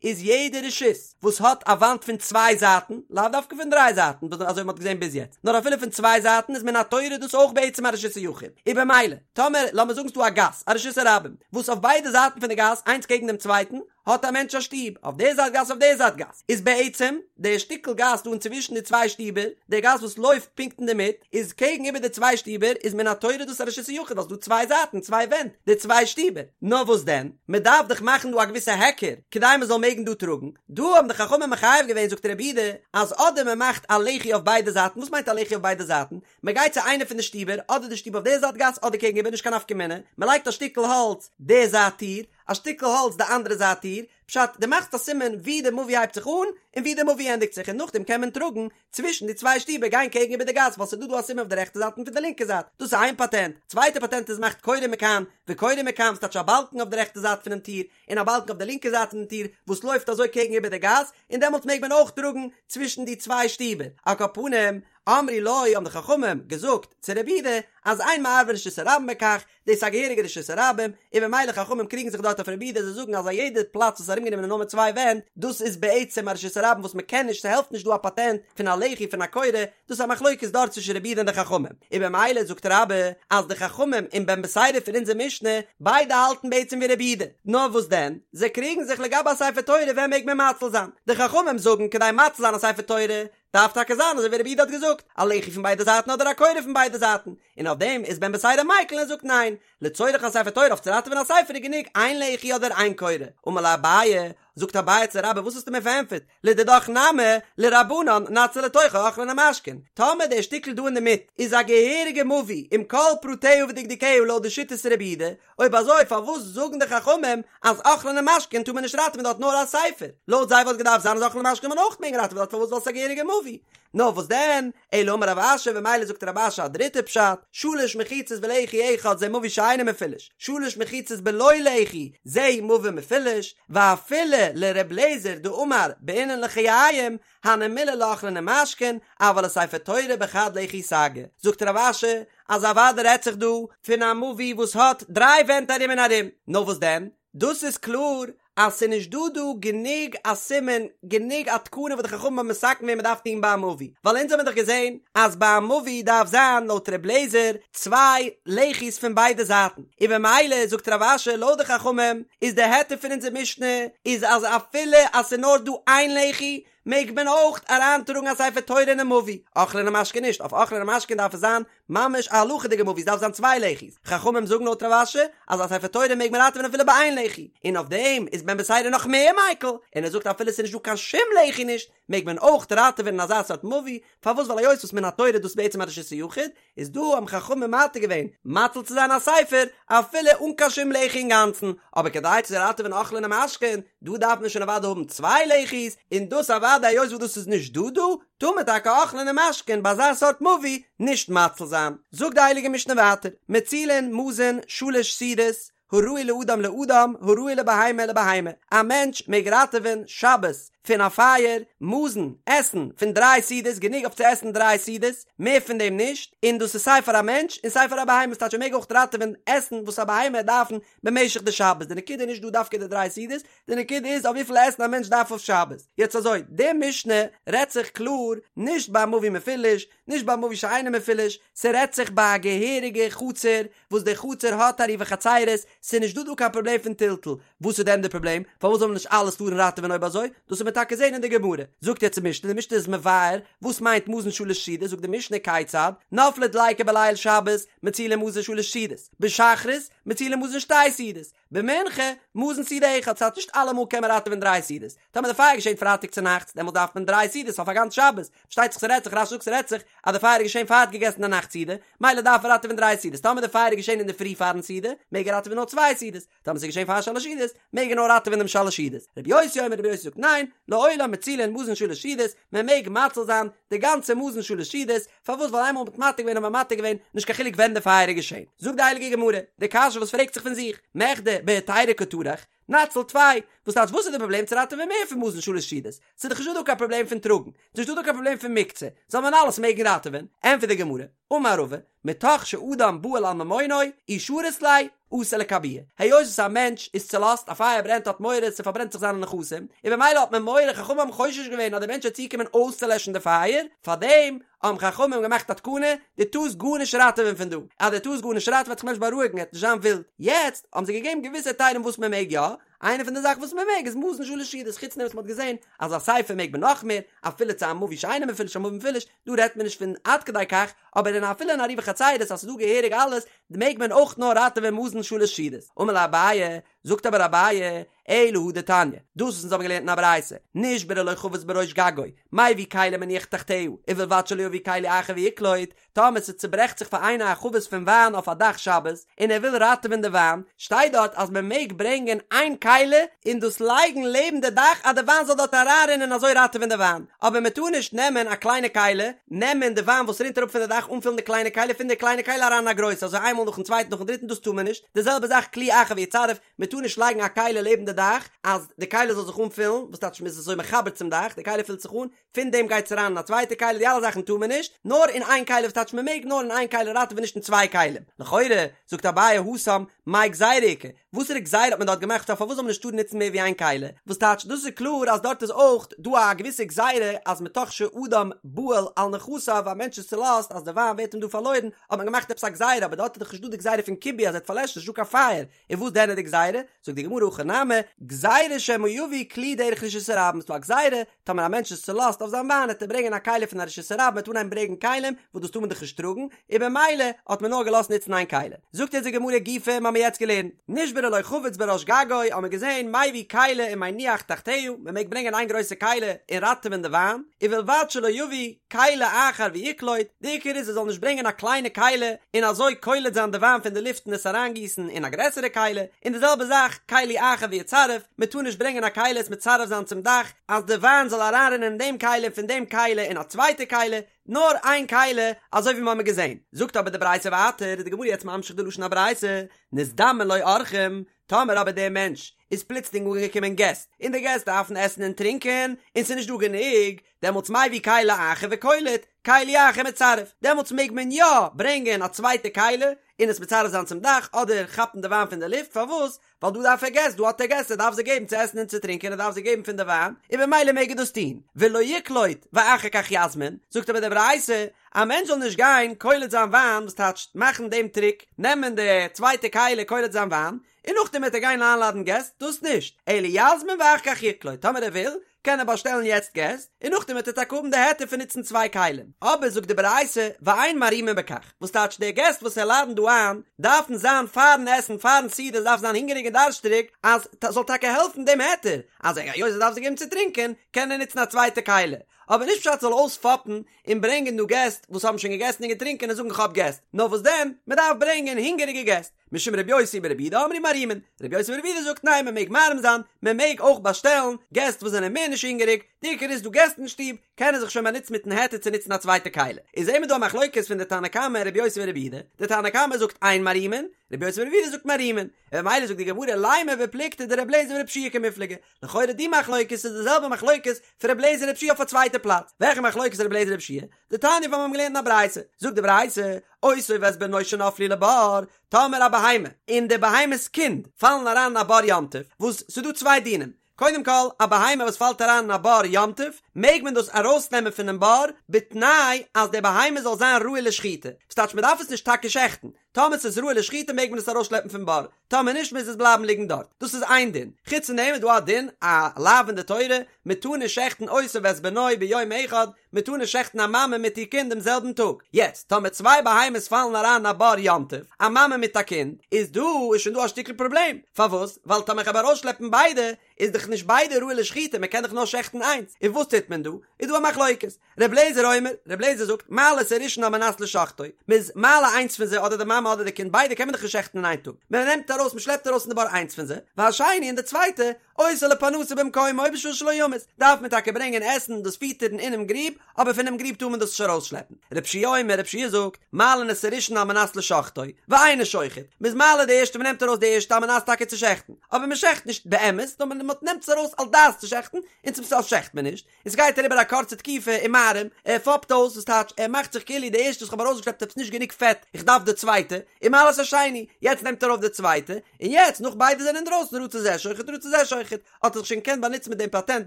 איז יעדע רשות וואס האט א וואנט פון צוויי זייטן, לאו דווקא פון דריי זייטן וואס אזוי ווי מ'האט געזען ביז יעצט, נאר אפילו פון צוויי זייטן איז מן התורה דאס אויך בעצם א רשות היחיד, און במילא טאמער לאמיר זאגן ס'דא א גאס, א רשות הרבים, וואס אויף ביידע זייטן פון די גאס איינס קעגן דעם צווייטן, האט א מענטש א שטוב, אויף די זייט גאס אויף די זייט גאס, איז בעצם די שטיקל גאס דא אינצווישן די צוויי שטיבער, די גאס וואס לויפט פונקט אינדערמיט, איז קעגן איבער די צוויי שטיבער, איז מן התורה דאס א רשות היחיד ווייל ס'דא צוויי זייטן, צוויי ווענט, די צוויי שטיבער. נאר וואס דען, מען דארף דאך מאכן דא א געוויסע היכר, כדי מען זאל מעגן דא טראגן, דא האבן די חכמים מחייב געווען זאגט רבי יהודה, אז אדער מען מאכט א לחי אויף ביידע זייטן, וואס מיינט א לחי אויף ביידע זייטן? מען גייט צו איינע פון די שטיבער, אדער די שטוב אויף די זייט גאס אדער קעגן איבער נישט קיין נפקא מינה, מען לייגט א שטיקל האלץ די זייט טיר, א שטיקל האלץ די אנדערע זייט טיר, פשט, דו מאכסט א סימן ווי די מבוי הייבט זיך אן און ווי די מבוי ענדיגט זיך און נאכדעם קען מען טראגן צווישן די צוויי שטיבער גיין קעגן איבער די גאס ווייל ס'איז דא דא א סימן אויף די רעכטע זייט און פון די לינקע זייט, דאס איז איין פאטענט, צווייטע פאטענט איז מאכט קורה מכאן וקורה מכאן ס'טייטש א באלקן אויף די רעכטע זייט פונעם טיר און א באלקן אויף די לינקע זייט פונעם טיר וואס לויפט אזוי קעגן איבער די גאס און דעמאלטס מעג מען אויך טראגן צווישן די צוויי שטיבער, על כל פנים, אמרו לו האבן די חכמים געזאגט צו רבי יהודה אז אין מערבין רשות הרבים בכך, דאס איז א געהעריגע רשות הרבים, און ממילא חכמים קריגן זיך דארט אויף רבי יהודה זיי זאגן אז א יעדע פלאץ וואס איז ארומגענומען נאר מיט צוויי ווענט דאס איז בעצם א רשות הרבים וואס מען קען נישט ס'העלפט נישט דא א פאטענט פון א לחי פון א קורה, דאס איז א מחלוקת דארט צווישן רבי יהודה און די חכמים, און במילא זאגט רבה אז די חכמים און בן בתירא פון אונזער משנה ביידע האלטן בעצם ווי רבי יהודה, נאר וואס דען זיי קריגן זיך לגבי א ספר תורה ווען מעג מען מציל זיין, די חכמים זאגן כדי מציל זיין א ספר תורה דארף טאקע זיין אזוי ווי רבי יהודה האט געזאגט, א לחי פון ביידע זייטן אדער א קורה פון ביידע זייטן, און אויף דעם איז בן בתירא מיקל און זאגט ניין, לצורך א ספר תורה אויף צו ראטעווען א ספר איז גענוג איין לחי אדער איין קורה, אמר ליה אביי, זאגט אביי צו רבה וואס האסטו מיר פארענטפערט, לדידך נמי, לרבנן נציל לתוכו אוכלין ומשקין, טאמער דער שטיקל דא אינדערמיט איז א געהעריגע מבוי עם כל פרטיה ודקדוקיה לויט די שיטת רבי יהודה, אויב אזוי פארוואס זאגן די חכמים אז אוכלין ומשקין טאר מען נישט ראטעווען דארט נאר א ספר? לויט זיי וואלט געדארפט זיין אז אוכלין ומשקין זאל מען אויך מעגן ראטעווען דארט פארוואס ווייל ס'איז א געהעריגע מבוי? נאר וואס דען? אלא אמר רב אשי במילא זאגט רב אשי א דריטע פשט, שלש מחיצות ולחי אחד זה מבוי שאינו מפולש, שלש מחיצות בלא לחי זה מבוי מפולש, ואפילו לר' אליעזר דאמר בעינן לחיים, הני מילי לאוכלין ומשקין, אבל לספר תורה בחד לחי סגי. זאגט רב אשי, אז אוודאי רעדט זיך דא פון א מבוי וואס האט דריי ווענט ארום און ארום, נאר וואס דען? דאס איז קלאר. אז ס'איז נישט דא דא גענוג א סימן, גענוג א תקנה וואס די חכמים האבן מתקן געווען מ'דארף טון ביי א מבוי, ווייל אונז האבן דאך געזען אז ביי א מבוי דארף זיין לויט ר' לעזער צוויי לחי'ס פון ביידע זייטן, און במילא זאגט רב אשי לויט די חכמים איז די היתר פון אונזער משנה איז אז אפילו אז ס'איז נאר דא איין לחי מעג מען אויך אריינטראגן א ספר תורה אינעם מבוי, אוכלין ומשקין נישט, אויף אוכלין ומשקין דארף עס זיין ממש א הלכה'דיגע מבוי, ס'דארף זיין צוויי לחי'ס, חכמים זאגן לויט רב אשי אז א ספר תורה מעג מען ראטעווען אפילו ביי איין לחי, און אויף דעם איז בן בתירא נאך מער מיקל, און ער זאגט אפילו ס'איז נישט דא קיין שום לחי נישט, מעג מען אויך ראטעווען אין אזא סארט מבוי, פארוואס ווייל היות וואס מן התורה איז דאס בעצם א רשות היחיד, איז דא האבן חכמים מתיר געווען מציל צו זיין א ספר אפילו אן קיין שום לחי אינגאנצן, אבער כדי צו ראטעווען אוכלין ומשקין, דא דארף מען שוין אוודאי האבן צוויי לחי'ס, און דאס אוודאי היות וואס דאס איז נישט דא דא, טאר מען טאקע אוכלין ומשקין ביי אזא סארט מבוי נישט מציל זיין. זאגט די הייליגע משנה ווייטער, מצילין מזון שלש סעודות, הראוי לאדם לאדם, הראוי לבהמה לבהמה, א מענטש מעג ראטעווען שבת פון א פייער, מזון, עסן, פון דריי סעודות, גענוג אויף צו עסן דריי סעודות, מער פון דעם נישט, און דאס איז סיי פאר א מענטש און סיי פאר א בהמה, ס'טייטש ער מעג אויך ראטעווען עסן וואס א בהמה וועט דארפן במשך די שבת, די נקודה איז נישט דא דווקא די דריי סעודות, די נקודה איז אויף וויפיל עסן א מענטש דארף אויף שבת. יעצט אזוי, די משנה רעדט זיך קלאר נישט ביי א מבוי מפולש, נישט ביי א מבוי שאינו מפולש, ס'רעדט זיך ביי א געהעריגע חצר וואס די חצר האט עירובי חצירות, ס'איז נישט דא דא קיין פראבלעם פון טלטול, וואס איז דען די פראבלעם? פארוואס זאל מען נישט אלעס טארן ראטעווען אויב אזוי? דאס וועט מען טאקע זען אין די גמרא. זאגט יעצט די משנה, די משנה איז מבאר וואס מיינט מזון שלש סעודות, זאגט די משנה כיצד, נפלה דליקה בליל שבת, מצילין מזון שלש סעודות, בשחרית, מצילין מזון שתי סעודות, במנחה, מזון סעודה אחת, ס'הייסט נישט אלעמאל קען מען ראטעווען דריי סעודות, טאמער די פייער געשענט פרייטאג צונאכטס, דעמאלט דארף מען דריי סעודות אויף א גאנץ שבת, פארשטייט זיך ס'רעדט זיך, רש"י זאגט ס'רעדט זיך אז די פייער איז געשען פאר ער האט געגעסן די נאכט סעודה, מילא דארף ער ראטעווען דריי סעודות, טאמער די פייער איז געשען אינדערפרי פארן סעודה, מעג ער ראטעווען נאר צוויי סעודות, טאמער ס'איז געשען פאר שלש סעודות, מעג ער נאר ראטעווען דעם שלש סעודות. רבי יוסי אומר, רבי יוסי זאגט ניין, לעולם מצילין מזון שלש סעודות, מען מעג מציל זיין די גאנצע מזון שלש סעודות, פארוואס ווייל איינמאל מ'האט מתיר געווען האט מען מתיר געווען, נישט קיין חילוק ווען די פייער איז געשען. זאגט די הייליגע גמרא, די קשיא וואס פרעגט זיך פון זיך, מכדי בהיתירא קא טרח, נציל טפי, וואס טייטש וואס איז די פראבלעם צו ראטעווען מער פון מזון שלש סעודות? ס'איז דאך נישטא דא קיין פראבלעם פון טראגן, ס'איז נישטא דא קיין פראבלעם פון מוקצה, זאל מען אלעס מעגן ראטעווען? ענטפערט די גמרא, אמר רבא, מתוך שאדם בהול על ממונו, אי שרית ליה, אתי לכבויי. היות וואס א מענטש איז צולאזט, א פייער ברענט האט מורא ס'פארברענט זיך זיינע נכסים, און במילא האט מען מורא, חכמים האבן חושש געווען אז דער מענטש וועט צוקומען אויסצולעשן די פייער, פארדעם האבן חכמים געמאכט א תקנה, דו טארסט גארנישט ראטעווען פון דא, אז דו טארסט גארנישט ראטעווען וועט זיך מענטש בארואיגן, ער וועט נישט זיין ווילד. יעצט האבן זיי געגעבן געוויסע היתרים וואס מען מעג יא, איינע פון די זאכן וואס מען מעג איז מזון שלש סעודות, חוץ דעם וואס מען האט געזען אז א ספר מעג מען נאך מער, אפילו צו א מבוי שאינו מפולש א מבוי מפולש, דא רעדט מען נישט פון עד כדי כך, אבער אין אפילו אין עירובי חצירות אז ס'איז דא געהעריג אלעס, מעג מען אויך נאר ראטעווען מזון שלש סעודות. אמר ליה אביי, זאגט אבער אביי, אלא הא דתניא, דאס וואס אונז האבן געלערנט אין א ברייתא, נשברה לו חבית בראש גגו, מביא כלי ומניח תחתיה, ובלבד שלא יביא כלי אחר ויקלוט, טאמער ס'צוברעכט זיך פאר איינער א חבית פון וויין אויף א דאך שבת, און ער וויל ראטעווען די וויין, שטייט דארט אז מען מעג ברענגען איין כלי און דאס לייגן לעבן די דאך אז די וויין זאל דארט אריינרינען און אזוי ראטעווען די וויין, אבער מען טאר נישט נעמען א קליינע כלי, נעמען די וויין וואס רינט אראפ פון די דאך אנפילן די קליינע כלי, פון די קליינע כלי אריין אין א גרויסע, אזוי איינמאל נאכן צווייטן נאכן דריטן דאס טאר מען נישט, די זעלבע זאך כלי אחר ויצרף, מען טאר נישט לייגן א כלי לעבן די דאך אז די כלי זאל זיך אנפילן, וואס טייטש מען איז אזוי מחבר צום דאך, די כלי פילט זיך אן, פון דעם גייט עס אריין אין א צווייטע כלי, די אלע זאכן טאר מען נישט, נאר אין איין כלי, וואס טייטש מען מעג נאר אין איין כלי ראטעווען נישט אין צוויי כלים, לכאורה, זאגט אביי התם, מאי גזירה איכא, וואסערע גזירה האט מען דארט געמאכט פארוואס זאל מען נישט טארן נוצן מער ווי איין כלי, וואס טייטש דאס איז קלאר אז דארט איז אויך דא א געוויסע גזירה אז מתוך שאדם בהול על נכסיו א מענטש איז צולאזט אז די וויין ווערט אים דא פארלוירן האט מען געמאכט עפעס א גזירה אבער דארט איז דאך נישט דא די גזירה פון כיבוי אז ער וועט פארלעשן נישט דא קיין פייער און וואס דען איז די גזירה? זאגט די גמרא הכא נמי, גזירה שמא יביא כלי דרך רשות הרבים, ס'דא א גזירה, טאמער א מענטש איז צולאזט אויף זיין וויין וועט ער ברענגען א כלי פון א רשות הרבים, מ'וועט אנהייבן ברענגען כלים, וואס דאס טאר מען דאך נישט טראגן, און במילא האט מען נאר געלאזט נוצן איין כלי. זאגט אונז די גמרא גופא, מ'האמיר יעצט געלערנט, נשברה לו חבית בראש גגו, האמיר געזען, מביא כלי ומניח תחתיה, מ'מעג ברענגען איין גרויסע כלי און ראטעווען די וויין, ובלבד שלא יביא, כלי אחר ויקלוט, די עיקר איז ער זאל נישט ברענגען א קליינע כלי און אזוי קולט זיין די וויין פון די לופט און עס אריינגיסן אין א גרעסערע כלי, און די זעלבע זאך כלי אחר ויצרף, מען טאר נישט ברענגען א כלי עס מצרף זיין צום דאך אז די וויין זאל אריינרינען אין דעם כלי און פון דעם כלי אין א צווייטע כלי, נאר איין כלי אזוי ווי מיר האבן געזען. זאגט אבער די ברייתא ווייטער, איז די גמרא יעצט ממשיך די לשון הברייתא, נזדמן לו אורחים, טאמער אבער דער מענטש איז פלוצלינג אנגעקומען געסט, און די געסט דארפן עסן און טרינקען, און ס'איז נישט דא גענוג, דעמאלטס מביא כלי אחר וקולט, כלי אחר מצרף, דעמאלטס מעג מען יא ברענגען א צווייטע כלי און עס מצרף זיין צום דאך אדער כאפן די וויין פון די לופט, פארוואס? ווייל דא דארף ער געסט, דא האט ער געסט, ער דארף זיי געבן צו עסן און צו טרינקען, ער דארף זיי געבן פון די וויין, און במילא מעג ער דאס טון, ולא יקלוט ואחר כך יזמין, זאגט אבער די ברייתא, א מענטש זאל נישט גיין קולט זיין וויין, וואס טייטשט מאכן דעם טריק, נעמען די צווייטע כלי קולט זיין וויין, און נאכדעם וועט ער גיין איינלאדן געסט, דאס נישט, אלא יזמין ואחר כך יקלוט, טאמער ער וויל, קען ער באשטעלן יעצט געסט, און נאכדעם וועט ער טאקע האבן די היתר פון נוצן צוויי כלים. אבער זאגט די ברייתא, ואין מערימין בכך, וואס טייטש די געסט וואס ער לאדנט דא איין, דארפן זיין פארן עסן, פארן סעודה, דארף זיין הונגעריג און דארשטריג, אז ס'זאל טאקע העלפן דעם היתר, אז היות ער דארף זיי געבן צו טרינקען, קען ער נוצן א צווייטע כלי. אבער נישט פשט זאל אויספאפן און ברענגען דא געסט וואס האבן שוין געגעסן און געטרינקען און זאגן כ'האב געסט, נאר וואס דען, מ'דארף ברענגען הונגעריגע געסט. משום רבי יוסי ברבי יהודה אמרו מערימין, רבי יוסי ברבי יהודה זאגט ניין מען מעג מערים זיין, מען מעג אויך באשטעלן געסט וואס זענען מער נישט הונגעריג, די עיקר איז דא געסט אין שטוב, קען ער זיך שוין באנוצן מיטן היתר צו נוצן א צווייטע כלי. איז זעהן מיר דא א מחלוקת פון די תנא קמא און רבי יוסי ברבי יהודה, די תנא קמא זאגט אין מערימין, רבי יוסי ברבי יהודה זאגט מערימין, און ממילא זאגט די גמרא לימא בפלוגתא דרבי אליעזר ורבי יהושע קמיפלגי, לכאורה די מחלוקת איז די זעלבע מחלוקת פון רבי אליעזר און רבי יהושע אויף א צווייטע פלאץ, וועלכע מחלוקת רבי אליעזר רבי יהושע? דתניא וואס מיר האבן געלערנט אין א ברייתא, זאגט די ברייתא, אותו ואת בנו שנפלו לבור, טאמער א בהמה און די בהמה'ס קינד פאלן אריין אין א בור יום טוב, וואס ס'איז דא צוויי דינים, קודם כל, א בהמה וואס פאלט אריין אין א בור יום טוב, מעג מען דאס ארויסנעמען פונעם בור, בתנאי אז די בהמה זאל זיין ראוי לשחיטה, וואס טייטש מען דארף עס נישט טאקע שעכטן, טאמער ס'איז ראוי לשחיטה מעג מען עס ארויסשלעפן פון בור, טאמער נישט מוז עס בלייבן ליגן דארט, דאס איז איין דין, חוץ פון דעם איז דא א דין, א לאו אין די תורה, מען טאר נישט שעכטן אותו ואת בנו ביום אחד, מען טאר נישט שעכטן א מאמע מיט איר קינד דעם זעלבן טאג, יעצט טאמער צוויי בהמות פאלן אריין אין א בור יום טוב, א מאמע מיט א קינד, איז דא איז שוין דא א שטיקל פראבלעם, פארוואס? ווייל טאמער איך האב ארויסשלעפן ביידע, איז דאך נישט ביידע ראוי לשחיטה, מען קען דאך נאר שעכטן איינס, און וואס טוט מען דא? איז דא א מחלוקת, ר' לעזער אומר, ר' לעזער זאגט, מעלה את הראשון על מנת לשחטו, מען איז מעלה איינס פון זיי אדער די מאמע אדער די קינד ביידע קען מען דאך נישט שעכטן אין איין טאג, מען נעמט ארויס מען שלעפט ארויס פון די בור איינס פון זיי, והשני און די צווייטע, עושה לו פרנסה במקומו בשביל שלא ימות, דארף מען טאקע ברענגען עסן דאס פיטערן אינעם גריב, אבער פונעם גריב טאר מען דאס נישט ארויסשלעפן. ר' יהושע אומר, ר' יהושע זאגט, מעלין את הראשון על מנת לשחטו, ואינו שוחט, מען איז מעלה די ערשטע מען נעמט ארויס די ערשטע על מנת טאקע צו שעכטן, אבער מען שעכט נישט באמת, נאר מען נעמט עס ארויס על דעת צו שעכטן, און צום סוף שעכט מען נישט, און ס'גייט אריבער א קורצע תקופה ומערים, ער פאפט אויס, וואס טייטש, ער מאכט זיך כאילו די ערשטע וואס כ'האב ארויסגעשלעפט עפעס נישט גענוג פעט, איך דארף די צווייטע, ומעלה את השני, יעצט נעמט ער ארויף די צווייטע, און יעצט נאך ביידע זענען אינדרויסן רצה זה שוחט רצה זה שוחט, האט ער זיך שוין געקענט באנוצן מיט דעם פאטענט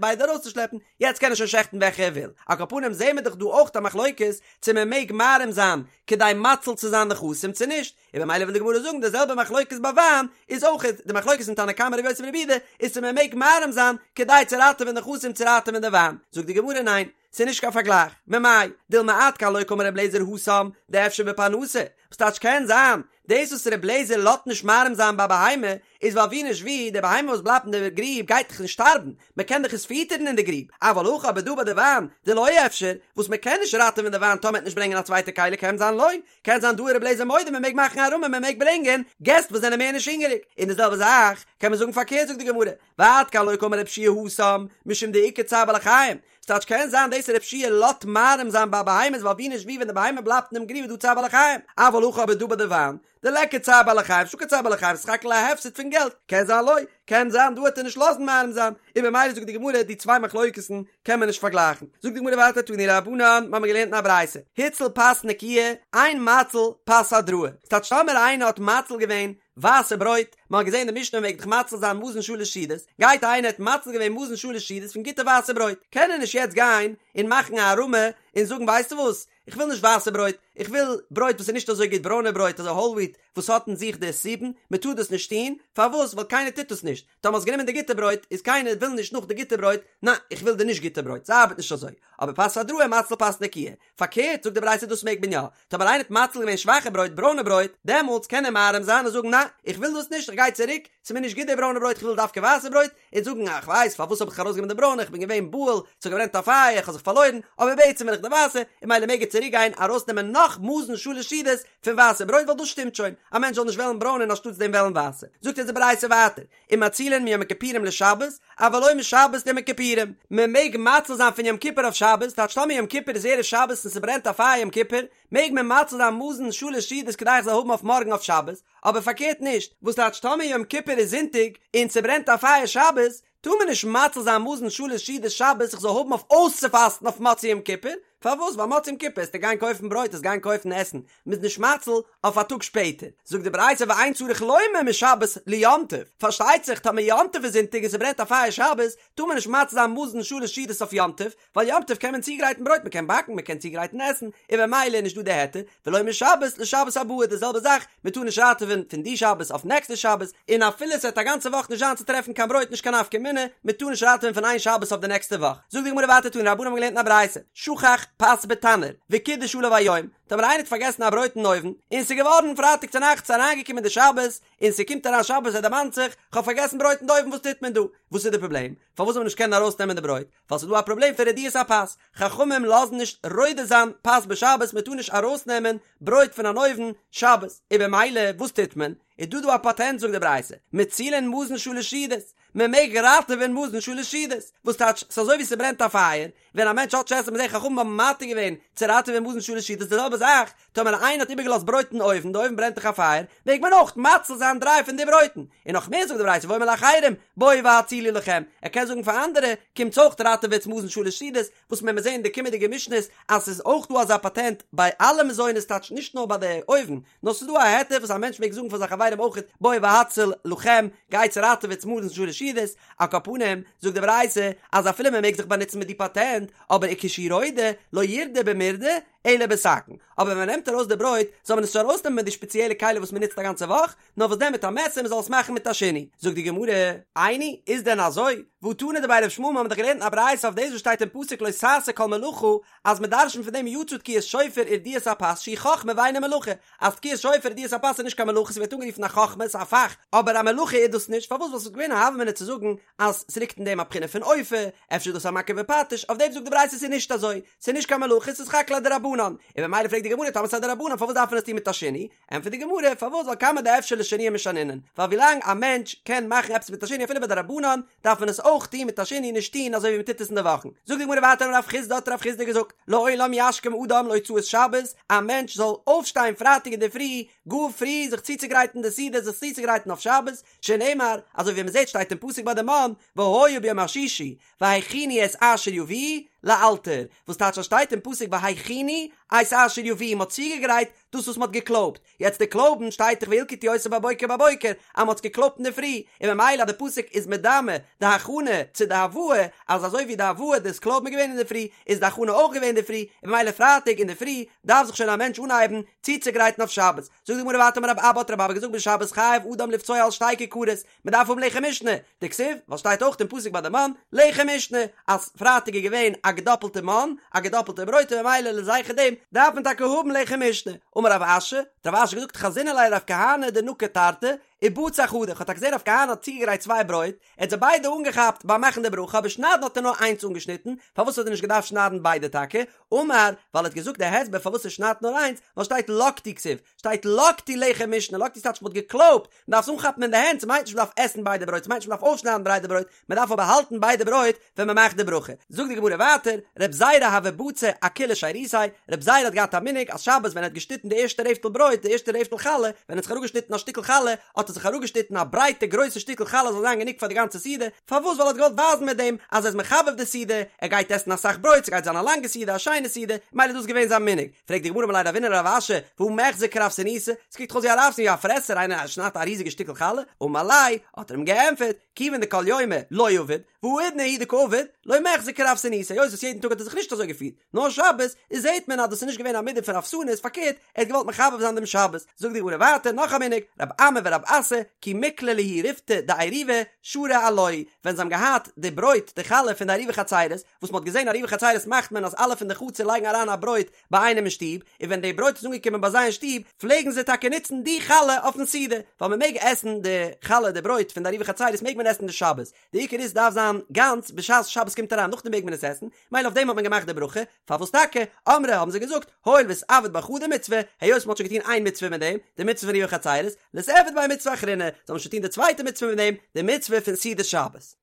ביידע ארויסצושלעפן, יעצט קען ער שוין שעכטן וועלכע ער וויל. על כל פנים זעהן מיר דאך דא אויך א מחלוקת צו מען מעג מערים זיין כדי מציל צו זיין נכסים צו נישט, און במילא וויל די גמרא זאגן די זעלבע מחלוקת ביי וויין איז אויך די מחלוקת אין תנא קמא רבי יוסי ברבי יהודה איז צו מען מעג מערים זיין כדי צו ראטעווען נכסים צו ראטעווען די וויין, זאגט די גמרא ניין ס'איז נישט קיין פארגלייך, ממאי דילמא עד כאן לא קאמר רבי אליעזר התם דאפשר בפרנסה, וואס טייטש קען זיין דאס וואס רבי אליעזר לאזט נישט מערים זיין ביי בהמה איז ווייל ווי נישט ווי די בהמה וואס בלייבט אין די גריב גייט דאך נישט שטארבן, מען קען דאך עס פיטערן אין די גריב, אבל הכא אבער דא ביי די וויין דלא אפשר, וואס מען קען נישט ראטעווען די וויין טאמער מ'עט נישט ברענגען א צווייטע כלי קען זיין לא, קען זיין דא איז רבי אליעזר מודה מען מעג מאכן הערמה מען מעג ברענגען געסט וואס זענען מער נישט הונגעריג, און די זעלבע זאך קען מען זאגן פארקערט זאגט די גמרא, ועד כאן לא קאמר רבי יהושע התם משום דאיכא צער בעלי חיים, ס'טייטש קען זיין דאס רבי יהושע לאזט מערים זיין ביי בהמות ווייל ווי נישט ווי ווען די בהמה בלייבט אינעם גריב איז דא צער בעלי חיים, אבל הכא אבער דא ביי די וויין דליכא צער בעלי חיים נישטא קיין צער בעלי חיים ס'איז סך הכל א הפסד פון געלט, קען זיין לא, קען זיין דא וועט ער נישט לאזן מערים זיין, און במילא זאגט די גמרא די צוויי מחלוקת'ן קען מען נישט פארגלייכן, זאגט די גמרא ווייטער תנו רבנן, מ'האמיר געלערנט אין א ברייתא, הציל פת נקיה, אין מציל פת הדראה, ס'טייטש טאמער איינער האט מציל געווען ווייסע ברויט, מ'האט געזען אין די משנה מ'מעג דאך מציל זיין מזון שלש סעודות, גייט איינער האט מציל געווען מזון שלש סעודות פון גוטע ווייסע ברויט, קען ער נישט יעצט גיין און מאכן א הערמה און זאגן ווייסטו וואס, איך וויל נישט ווייסע ברויט, איך וויל ברויט וואס איז נישט אזוי גוט, ברוינע ברויט אזוי האול וויט וואס האט אין זיך די סובין, מען טאר דאס נישט טון, פארוואס? ווייל קיינער טוט דאס נישט, טאמער האסט גענומען די גוטע ברויט, איז קיינער וויל נישט נאך די גוטע ברויט, ניין, איך וויל די נישט גוטע ברויט, ס'ארבעט נישט אזוי, אבער פת הדראה מציל פת נקיה, פארקערט זאגט די ברייתא דאס מעג מען יא, טאמער איינער האט מציל געווען שוואכע ברויט, ברוינע ברויט, דעמאלטס קען ער מערים זיין און זאגן ניין, איך וויל דאס נישט, איך גיי צוריק, ס'איז מיר נישט גוט די ברוינע ברויט, איך וויל דווקא ווייסע ברויט, און זאגן איך ווייס פארוואס האב איך ארויסגענומען די ברוינע איך בין געווען בהול ס'האט געברענט א פייער איך האב זיך פארלוירן אבער בעצם וויל איך די ווייסע און ממילא מעג ער צוריק גיין ארויסנעמען נאך מזון שלש סעודות פון ווייסע ברויט ווייל דאס שטימט שוין א מענטש זאל נישט וועלן ברוינע און אנשטאטס דעם וועלן ווייסע זאגט אונז די ברייתא ווייטער ומצילין מיום הכיפורים לשבת אבל לא משבת ליום הכיפורים מען מעג מציל זיין פון יום כיפור אויף שבת טייטש טאמער יום כיפור איז ערב שבת און ס'ברענט א פייער יום כיפור מעג מען מציל זיין מזון שלש סעודות כדי איך זאל האבן אויף מארגן אויף שבת, אבער פארקערט נישט, וואס טייטש טאמער יום כיפור איז זונטאג און ס'ברענט א פייער שבת, טאר מען נישט מציל זיין מזון שלש סעודות שבת איך זאל האבן אויף אויסצופאסטן אויף מוצאי יום כיפור, פארוואס? ווייל מוצאי יום כיפור עסטו גיין קויפן ברויט, עסט גיין קויפן עסן, מ'איז נישט מציל אויף א טאג שפעטער. זאגט די ברייתא ואין צריך לומר משבת ליום טוב, פארשטייט זיך טאמער יום טוב איז זונטאג און ס'ברענט א פייער שבת, טאר מען נישט מציל זיין מזון שלש סעודות אויף יום טוב, ווייל יום טוב קען מען צוגרייטן ברויט, מ'קען באקן, מ'קען צוגרייטן עסן, און במילא איז נישט דא די היתר, ולא משבת לשבת הבאה די זעלבע זאך, מ'טאר נישט ראטעווען פון די שבת אויף נעקסטע שבת, און אפילו ס'וועט א גאנצע וואך נישט זיין צו טרעפן קיין ברויט נישט קיין נפקא מינה, מ'טאר נישט ראטעווען פון איין שבת אויף די נעקסטע וואך. זאגט די גמרא ווייטער תנו רבנן האבן געלערנט אין א ברייתא, שכח פת בתנור, וקידש עליו היום, טאמער איינער האט פארגעסן א ברויט אין אויוון, און ס'איז געווארן פרייטאג צונאכטס אריינגעקומען די שבת, און ס'קומט אריין שבת ער דערמאנט זיך, כ'האב פארגעסן ברויט אין די אויוון וואס טוט מען דא? וואס איז די פראבלעם? פארוואס זאל מען נישט קענען ארויסנעמען די ברויט? ווייל ס'איז דא א פראבלעם פון רדיית הפת, חכמים לאזן נישט רודה זיין פת בשבת, מ'טאר נישט ארויסנעמען ברויט פון אן אויוון שבת, און במילא וואס טוט מען? איז דא דא א פאטענט זאגט די ברייתא, מצילין מזון שלש סעודות, מען מעג ראטעווען מזון שלש סעודות, וואס טייטש ס'איז אזוי ווי ס'ברענט א פייער, ווען א מענטש האט נישט עסן מ'זעט חכמים האבן מתיר געווען צו ראטעווען מזון שלש סעודות די זעלבע זאך, טאמער איינער האט איבערגעלאזט ברויט אין אויוון, די אויוון ברענט דאך א פייער, מעג מען אויך מציל זיין דריי פון די ברויטן, און נאך מער זאגט די ברייתא ואומר לאחרים בואו והצילו לכם, ער קען זאגן פאר אנדערע, קומטס אויך ראטעוועטס מזון שלש סעודות, וואס מען וועט זען אין די קומענדיגע משניות אז ס'איז אויך דא אזא פאטענט ביי אלע מזונות טייטש נישט נאר ביי די אויוון, נאר ס'איז דא א היתר וואס א מענטש מעג זאגן פאר זיין חברים אויכעט בואו והצילו לכם, גייטס ראטעוועטס מזון שלש סעודות, על כל פנים, זאגט די ברייתא אז אפילו מען מעג זיך באנוצן מיט די פאטענט, אבער וכשהוא רודה, לא ירדה במרדה, אלא בסכין, אבער ווען מען נעמט ארויס די ברויט, זאל מען עס נישט ארויסנעמען מיט די שפעציעלע כלי וואס מען נוצט א גאנצע וואך, נאר וואס דען מיט א מעסער מען זאל עס מאכן מיט א שינוי. זאגט די גמרא, איני, איז דען אזוי? והא תנא דבי רב ישמעאל מיר האבן דאך געלערנט אין א ברייתא אויף דאס וואס שטייט אין פסוק לא תעשה כל מלאכה, אז מען דרש'נט פון דעם יצא תקיעת שופר ורדיית הפת שהיא חכמה ואינה מלאכה, אז תקיעת שופר ורדיית הפת איז נישט קיין מלאכה ס'ווערט אנגערופן א חכמה ס'איז א פאך, אבער א מלאכה איז דאס נישט, פארוואס ווייל ס'וואלט געווען א הוה אמינא צו זאגן אז ס'ליגט אין דעם א בחינה פון אופה, אפשר איז דאס א מכה בפטיש, אויף דעם זאגט די ברייתא ס'איז נישט אזוי, ס'איז נישט קיין מלאכה ס'איז סך הכל א דרבנן, און במילא פרעגט די גמרא טאמער ס'איז א דרבנן פארוואס דארף מען עס טון מיט א שינוי, ענטפערט די גמרא, פארוואס ווייל כמה דאפשר לשנויי משנינן, ווייל ווילאנג א מענטש קען מאכן עפעס מיט א שינוי אפילו ביי דרבנן, דארף מען עס אויך טון מיט א שינוי נישט טון אזוי ווי מען טוט עס אין די וואכן. זאגט די גמרא ווייטער אמר רב חסדא האט רב חסדא געזאגט, לעולם ישכים אדם להוצאת שבת, א מענטש זאל אויפשטיין פרייטאג אינדערפרי גאר פרי זיך צוצוגרייטן די סעודה זיך צוצוגרייטן אויף שבת, שנאמר, אזוי ווי מען זעט שטייט אין פסוק ביי די מן, והיה ביום השישי, והכינו את אשר יביאו לאלתר, וואס טייטש אז שטייט אין פסוק והכינו את אשר יביאו, מען האט צוגעגרייט דאס וואס מען האט געקלויבט, יעצט די קלויבן שטייט דאך וילקטו אותו בבוקר בבוקר אז מען האט עס געקלויבט אינדערפרי, און ממילא אז די פסוק איז מדמה די הכנה צו די הבאה, אז אזוי ווי די הבאה דאס קלויבן איז געווען אינדערפרי, איז די הכנה אויך געווען אינדערפרי, און ממילא פרייטאג אינדערפרי דארף זיך שוין א מענטש אנהייבן צוצוגרייטן אויף שבת. זאגט די גמרא ווייטער אמר רב אבא האט רב אבא געזאגט בשבת חייב אדם לבצוע על שתי כיכרות, מען דארף האבן לחם משנה, דכתיב, ווייל שטייט אויך אין פסוק ביי די מן, לחם משנה, אז פרייטאג איז געווען א געדאפלטע מן, א געדאפלטע ברויט און ממילא לזכר דעם דארף מען טאקע האבן לחם משנה. אמר רב אשי, האט רב אשי געזאגט חזינא ליה לרב כהנא דנקיט תרתי, ובצע חדא, כ'האב טאקע געזען רב כהנא האט צוגעגרייט צוויי ברויט, ער האט זיי ביידע אנגעכאפט ביים מאכן די ברכה אבער שניידן האט ער נאר איינס אנגעשניטן, פארוואס האט ער נישט געדארפט שניידן ביידע טאקע? אמר, ווייל ער האט געזאגט די הסבר פארוואס ער שניידט נאר איינס, ווייל שטייט לקטו כתיב, שטייט לקטו לחם משנה, לקטו טייטש מ'האט געקלויבט, מ'דארף עס אנכאפן אין די הענט, ס'מיינט נישט מ'דארף עסן ביידע ברויט, ס'מיינט נישט מ'דארף אויפשניידן ביידע ברויט, מ'דארף אבער האלטן ביידע ברויט ווען מ'מאכט די ברכה. זאגט די גמרא ווייטער, רב זירא הוה בצע אכולא שירותיה, רב זירא האט געהאט א מנהג אז שבת ווען ער האט געשניטן די ערשטע רעפטל ברויט, די ערשטע רעפטל חלה, ווען ער האט זיך אראפגעשניטן א שטיקל חלה, האט ער זיך אראפגעשניטן א ברייטע גרויסע שטיקל חלה זאל זיין גענוג פאר די גאנצע סעודה, פארוואס? ווייל ער האט געוואלט ווייזן מיט דעם אז ער איז מחבב די סעודה, ער גייט עסן אסאך ברויט, ס'גייט זיין א לאנגע סעודה, א שיינע סעודה, מילא איז דאס געווען זיין מנהג. פרעגט די גמרא אמר ליה רבינא לרב אשי, והא מיחזי כרעבתנותא, ס'קוקט דאך אויס ווי א רעבתן ווי א פרעסער, איינער שניידט א ריזיגע שטיקל חלה, אמר ליה, האט ער אים געענטפערט, כיוון דכל יומא לא עביד, והאידנא הוא דקא עביד, לא מיחזי כרעבתנותא, היות וואס יעדן טאג האט ער זיך נישט אזוי געפירט, נאר שבת, איז זעהט מען אז דאס איז נישט געווען א מידה פון רעבתנות, פארקערט, ער האט געוואלט מחבב זיין דעם שבת. זאגט די גמרא ווייטער נאך א מנהג, רב אמי ורב אסי, כי מיקלע להו ריפתא דעירובא, שרו עילויה, ווען זיי האבן געהאט די ברויט, די חלה פון די עירובי חצירות, וואס מען האט געזען עירובי חצירות מאכט מען אז אלע פון די חצר לייגן אריין א ברויט ביי איינעם אין שטוב, און ווען די ברויט איז אנגעקומען ביי זיי אין שטוב, פלעגן זיי טאקע נוצן די חלה אויפן סעודה, ווייל מען מעג עסן די חלה, די ברויט פון די עירובי חצירות מעג מען עסן די שבת, די עיקר איז ס'דארף זיין גאנץ בשעת שבת קומט אריין נאכדעם מעג מען עס עסן, מילא אויף דעם האט מען געמאכט די ברכה, פארוואס טאקע? אמרי האבן זיי געזאגט, הואיל ואיתעביד בה חדא מצוה, היות מ'האט שוין געטון איין מצוה מיט דעם, די מצוה פון עירובי חצירות, ליתעביד ביה מצוה אחרינא, זאל מען שוין טון די צווייטע מצוה מיט דעם, די מצוה פון סעודת שבת.